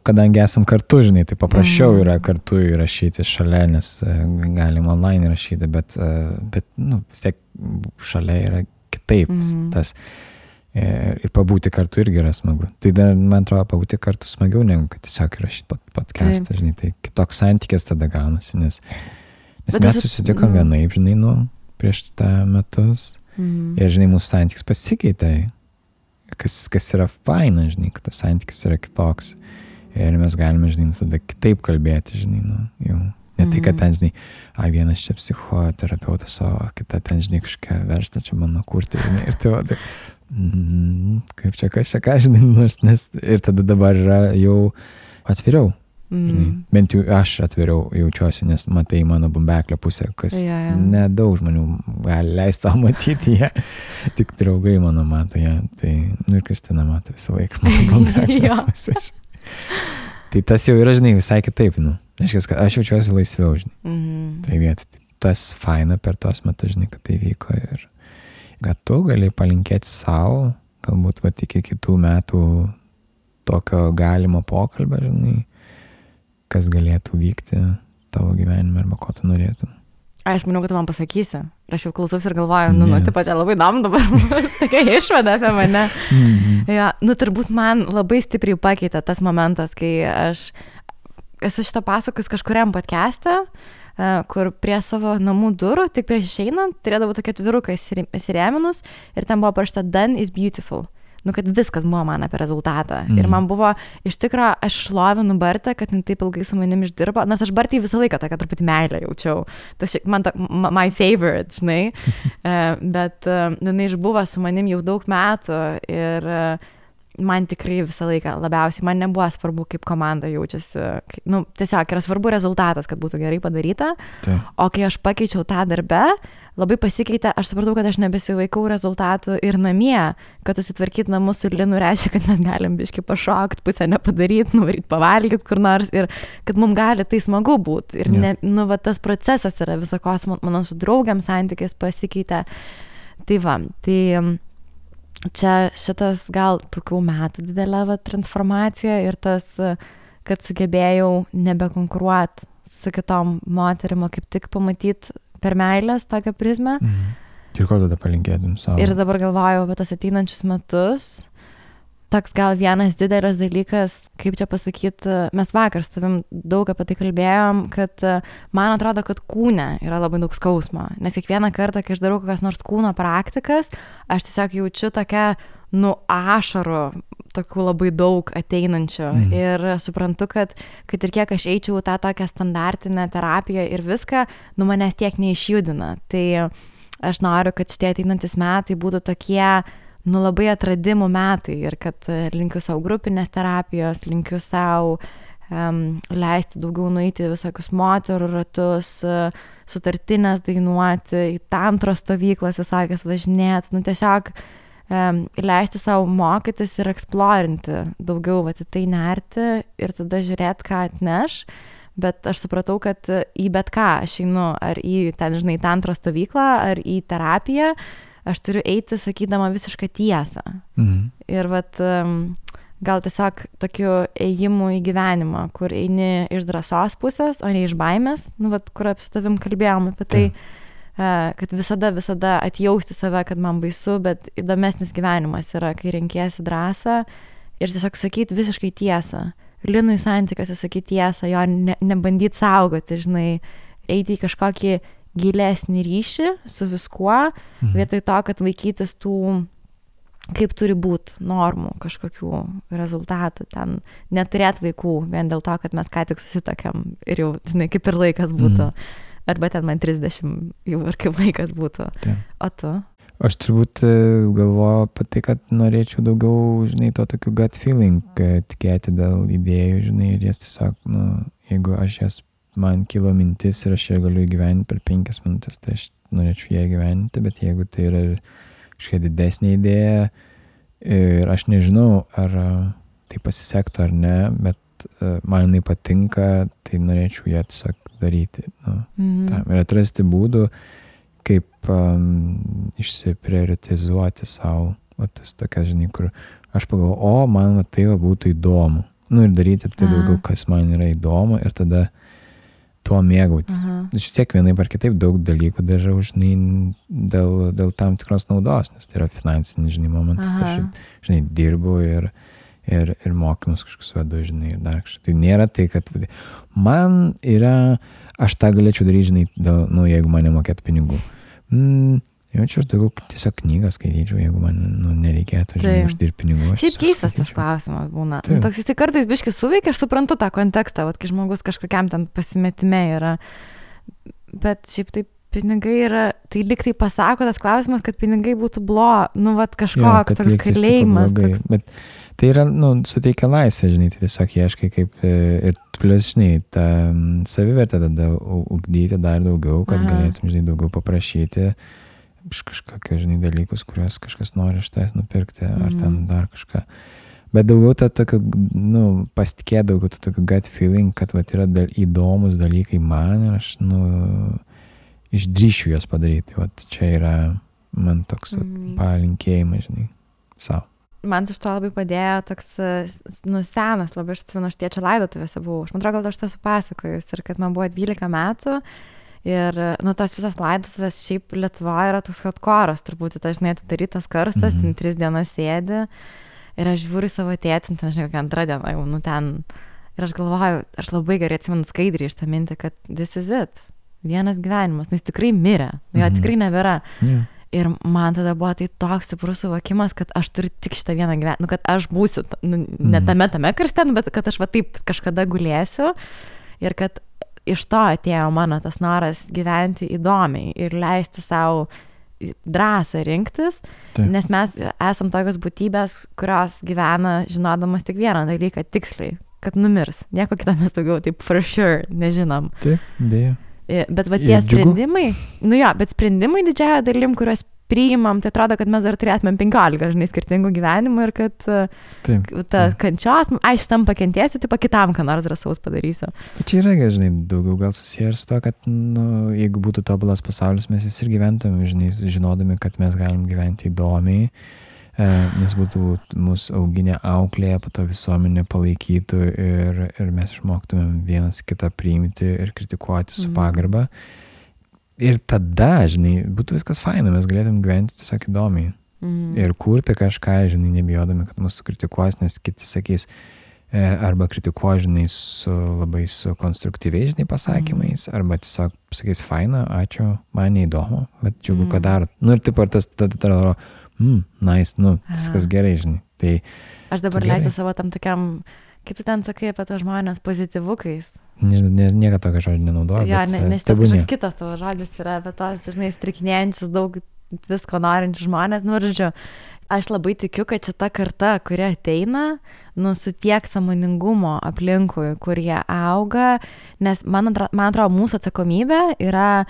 Speaker 1: kadangi esam kartu, žinai, tai paprasčiau yra kartu įrašyti šalia, nes galim online rašyti, bet vis tiek šalia yra kitaip tas. Ir pabūti kartu irgi yra smagu. Tai dar, man atrodo, pabūti kartu smagiau, negu kad tiesiog įrašyti podcast'ą, žinai, tai kitoks santykis tada gaunasi, nes mes susitikom vienaip, žinai, prieš tą metus. Ir, žinai, mūsų santykis pasikeitė, kas yra faina, žinai, kad tas santykis yra kitoks. Ir mes galime, žinai, tada kitaip kalbėti, žinai, jau. Ne tai, kad ten, žinai, vienas čia psichoterapeutas, o kita ten, žinai, kažką versta čia mano kurti, žinai, ir tai va, kaip čia, ką, žinai, nes ir tada dabar yra jau atviriau. Žinai, bent jau aš atviriau jaučiuosi, nes matai mano bumbeklio pusę, kas nedaug žmonių gali leisti savo matyti ją, tik draugai mano mato ją, tai, ir Kristina mato visą laiką mano bumbeklio pusę. Tai tas jau yra, žinai, visai kitaip, reiškia, kad aš jaučiuosi laisviau, žinai, tai vietoj. Tas faina per tos metus, žinai, kad tai vyko ir kad tu gali palinkėti savo, galbūt va iki kitų metų tokio galimo pokalbio, žinai, kas galėtų vykti tavo gyvenime arba ko tu norėtum.
Speaker 2: Aš manau, kad tu man pasakysi. Aš jau klausiausi ir galvoju, tipo, čia labai įdomu dabar, tokia išvada apie mane. Ja, turbūt man labai stipriai pakeitė tas momentas, kai aš esu šitą pasakojus kažkuriam podcast'e, kur prie savo namų durų, tik prieš išeinant, turėdavau tokia atviruką įsirėminus ir ten buvo parašyta "Done is beautiful". Kad viskas buvo man apie rezultatą. Ir man buvo, iš tikro, aš šlovinu Bartą, kad jin taip ilgai su manim išdirbo, nors aš Bartai visą laiką tokia truputį meilę jaučiau. Tas man my favorite, žinai. Bet jinai išbuvo su manim jau daug metų ir man tikrai visą laiką labiausiai, man nebuvo svarbu, kaip komanda jaučiasi. Tiesiog yra svarbu rezultatas, kad būtų gerai padaryta.
Speaker 1: Tai.
Speaker 2: O kai aš pakeičiau tą darbę, labai pasikeitė, aš supratau, kad aš nebesivaikau rezultatų ir namie, kad susitvarkyti namus su Linu reiškia, kad mes galim biškį pašokti, pusę nepadaryti, nuvaryti pavalgyti kur nors ir kad mums gali tai smagu būti. Ir tas procesas yra visokos, mano su draugiam santykis pasikeitė. Tai va, tai čia šitas gal tokių metų didelė transformacija ir tas, kad sugebėjau nebekonkuruoti su kitom moterim, kaip tik pamatyti per meilės tokią prizmę.
Speaker 1: Ir ko tada palinkėtum savo?
Speaker 2: Ir dabar galvojau apie tas ateinančius metus. Toks gal vienas didelis dalykas, kaip čia pasakyti, mes vakar su tavim daug apie tai kalbėjom, kad man atrodo, kad kūne yra labai daug skausmo. Nes kiekvieną kartą, kai aš darau kokias nors kūno praktikas, aš tiesiog jaučiu tokią, ašarų, tokių labai daug ateinančių. Ir suprantu, kad ir kiek aš eičiau tą tokią standartinę terapiją ir viską, manęs tiek neišjudina. Tai aš noriu, kad šitie ateinantis metai būtų tokie, labai atradimų metai ir kad linkiu savo grupinės terapijos, linkiu savo leisti daugiau nueiti visokius moterų ratus, sutartinės dainuoti, į tantros stovyklas visokias važinėti, tiesiog leisti savo mokytis ir eksplorinti daugiau, į tai nerti ir tada žiūrėti, ką atneš, bet aš supratau, kad į bet ką aš einu, ar į ten, žinai, tantros stovyklą, ar į terapiją, aš turiu eiti sakydama visišką tiesą. Ir gal tiesiog tokiu ėjimu į gyvenimą, kur eini iš drąsos pusės, o ne iš baimės, kur su tavim kalbėjom apie tai, kad visada atjausti save, kad man baisu, bet įdomesnis gyvenimas yra, kai renkiesi drąsą ir tiesiog sakyti visiškai tiesą. Linui santykiuose sakyti tiesą, jo nebandyti saugoti, žinai, eiti į kažkokį gilesnį ryšį su viskuo, vietoj to, kad vaikytis tų kaip turi būti normų kažkokių rezultatų, ten neturėt vaikų vien dėl to, kad mes ką tik susitokiam ir jau, žinai, kaip ir laikas būtų. Arba ten man 30 jau ir kaip laikas būtų. O tu?
Speaker 1: Aš turbūt galvoju apie tai, kad norėčiau daugiau, žinai, to tokių gut feeling, tikėti dėl idėjų, žinai, ir jas tiesiog, jeigu man kilo mintis ir aš ją galiu įgyventi per 5 minutės, tai aš norėčiau ją įgyventi, bet jeigu tai yra kažkokia didesnė idėja ir aš nežinau, ar tai pasisektų ar ne, bet man jinai patinka, tai norėčiau ją tiesiog daryti. Ir atrasti būdų, kaip išsiprioritizuoti savo, tas tokias, žinai, kur aš pagalvoju, man tai būtų įdomu. Ir daryti tai daugiau, kas man yra įdomu ir tada tuo mėgautis. Aš vis tiek vienaip ar kitaip daug dalykų darau, žinai, dėl tam tikros naudos, nes tai yra finansinis, žinai, momentas. Tai aš, žinai, dirbu ir mokymus kažkokius vedu, žinai, ir dar kažkaip. Tai nėra tai, kad man yra, aš tą galėčiau daryti, žinai, jeigu man nemokėtų pinigų. Jaučiu, aš daugiau tiesiog knygą skaityčiau, jeigu man nereikėtų, žinai, uždirbti pinigų.
Speaker 2: Šiaip keistas tas klausimas būna. Toks jis kartais biškai suveikia, aš suprantu tą kontekstą, kai žmogus kažkokiam ten pasimetime yra. Bet šiaip taip pinigai yra, tai lyg tai pasako tas klausimas, kad pinigai būtų kažkoks toks kalėjimas.
Speaker 1: Bet tai yra, suteikia laisvę, žinai, tai tiesiog ieškai kaip ir plus, žinai, tą savivertę tada ugdyti dar daugiau, kad galėtum, žinai, daugiau paprašyti iš kažkokio, žinai, dalykus, kuriuos kažkas nori iš tavęs nupirkti, ar ten dar kažką. Bet daugiau tą tokio, pasitikėti daugiau tą tokio gut feeling, kad yra įdomus dalykai man ir aš, išdrįšiu juos padaryti. Čia yra man toks palinkėjimas, žinai, savo.
Speaker 2: Man iš to labai padėjo toks, senas, labai aš atsimenu, aš tėčio laidotuvėse buvau. Aš man atrodo, gal aš tą supasakojus ir kad man buvo 12 metų ir, tas visas laidotuvės šiaip Lietuvoje yra toks hardcore'as, turbūt, žinai, atidarytas karstas, ten 3 dienas sėdi ir aš žiūriu savo tėtį, ten, žinai, kokią 2 dieną jau, ten. Ir aš galvoju, aš labai gerai atsimenu skaidriai iš tą mintį, kad this is it. Vienas gyvenimas, jis tikrai mirė, jo tikrai nebėra. Ir man tada buvo tai toks stiprus suvokimas, kad aš turiu tik šitą vieną gyvenimą, kad aš būsiu, ne tame karste, bet kad aš taip kažkada gulėsiu ir kad iš to atėjo mano tas noras gyventi įdomiai ir leisti savo drąsą rinktis, nes mes esam tokios būtybės, kurios gyvena žinodamas tik vieną dalyką tiksliai, kad numirs. Nieko kitą mes daugiau taip for sure nežinom.
Speaker 1: Taip, dėja.
Speaker 2: Bet tie sprendimai, bet sprendimai didžiąją dalim, kuriuos priimam, tai atrodo, kad mes dar turėtumėm 15, žinai, skirtingų gyvenimų ir kad ta kančios, šitam pakentėsiu, tai kitam ką nors drąsaus padarysiu.
Speaker 1: Bet čia yra, žinai, daugiau gal susiję ir su to, kad, jeigu būtų tobulas pasaulis, mes ir gyventumėm, žinai, žinodami, kad mes galim gyventi įdomiai, nes būtų mūsų auginę auklėje, po to visuomenė palaikytų ir mes išmoktumėm vienas kitą priimti ir kritikuoti su pagarba. Ir tada, žinai, būtų viskas faina, mes galėtum gyventi tiesiog įdomiai. Ir kurti kažką, žinai, nebijodami, kad mūsų kritikuos, nes kiti sakys, arba kritikuos, žinai, labai su konstruktyviais, žinai, pasakymais, arba tiesiog sakys, faina, ačiū, man neįdomu, bet džiugu, ką darot. Ir taip ar tas tada nice, viskas gerai, žinai. Tai
Speaker 2: aš dabar leisiu savo tam tokiam, kaip tu ten sakai apie tą žmonės pozityvukais.
Speaker 1: Nieko tokio žodžio nenaudoju.
Speaker 2: Jo, nes šitas kažkoks kitas tavo žodis yra apie tos, žinai, strikinėjančius daug visko norinčius žmonės. Žodžiu, aš labai tikiu, kad šita karta, kuri ateina, su tiek sąmoningumo aplinkui, kur jie auga, nes man atrodo, mūsų atsakomybė yra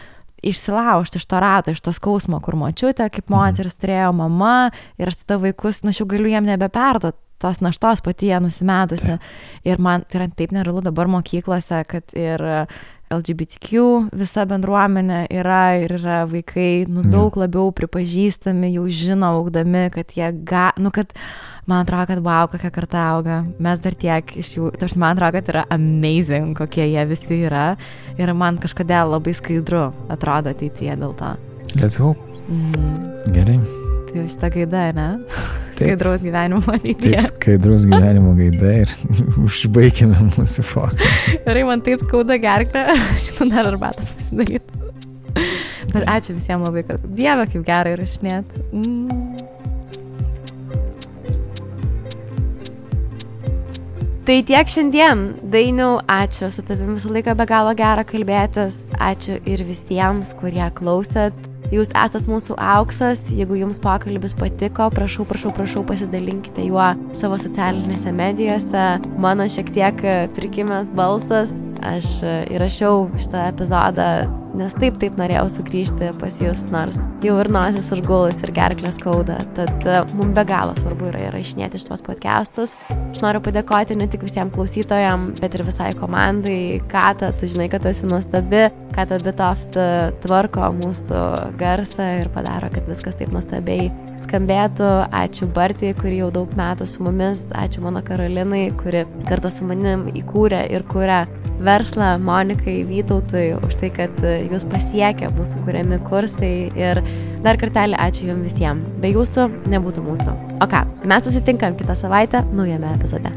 Speaker 2: išsilaužti iš to rato, iš to skausmo, kur močiutė, kaip moteris turėjo mama ir aš tada vaikus, aš jau galiu jiem nebeperduoti tos naštos pati jie nusimetusi. Ir man tai yra taip nerealu dabar mokyklose, kad ir LGBTQ visa bendruomenė yra ir yra vaikai daug labiau pripažįstami, jau žino augdami, kad jie kad man atrodo, kad wow, kokia karta auga. Mes dar tiek iš jų, man atrodo, kad yra amazing, kokie jie visi yra. Ir man kažkodėl labai skaidru atrodo ateityje dėl to.
Speaker 1: Let's hope. Gerai.
Speaker 2: Tai šitą gaidą, ne? Skaidraus gyvenimo ateityje.
Speaker 1: Taip, skaidraus gyvenimo gaida ir užbaigėme mūsų foką.
Speaker 2: Gerai, man taip skauda gerklę, šitą dar arbatas pasidaryti. Bet ačiū visiems labai, kad Dieve, kaip gerai įrašinėt. Tai tiek šiandien. Dainiau, ačiū. Su tavimi visą laiką be galo gera kalbėtis. Ačiū ir visiems, kurie klausėt. Jūs esat mūsų auksas. Jeigu jums pokalbis patiko, prašau, pasidalinkite juo savo socialinėse medijose. Mano šiek tiek prikimęs balsas. Aš įrašiau šitą epizodą, nes taip norėjau sugrįžti pas jūs, nors jau ir nosis užgulus ir gerklės skauda. Tad mums be galo svarbu yra įrašinėti šitos podcastus. Aš noriu padėkoti ne tik visiems klausytojams, bet ir visai komandai. Kata, tu žinai, kad esi nuostabi. Kata Bitoft tvarko mūsų garsą ir padaro, kad viskas taip nuostabiai skambėtų. Ačiū Bartai, kuri jau daug metų su mumis. Ačiū mano Karolinai, kuri kartu su manim įkūrė ir kuria verslą, Monikai, Vytautui, už tai, kad jūs pasiekė mūsų kuriami kursai. Ir dar kartelį ačiū jums visiems. Be jūsų nebūtų mūsų. O ką, mes susitinkam kitą savaitę naujame epizode.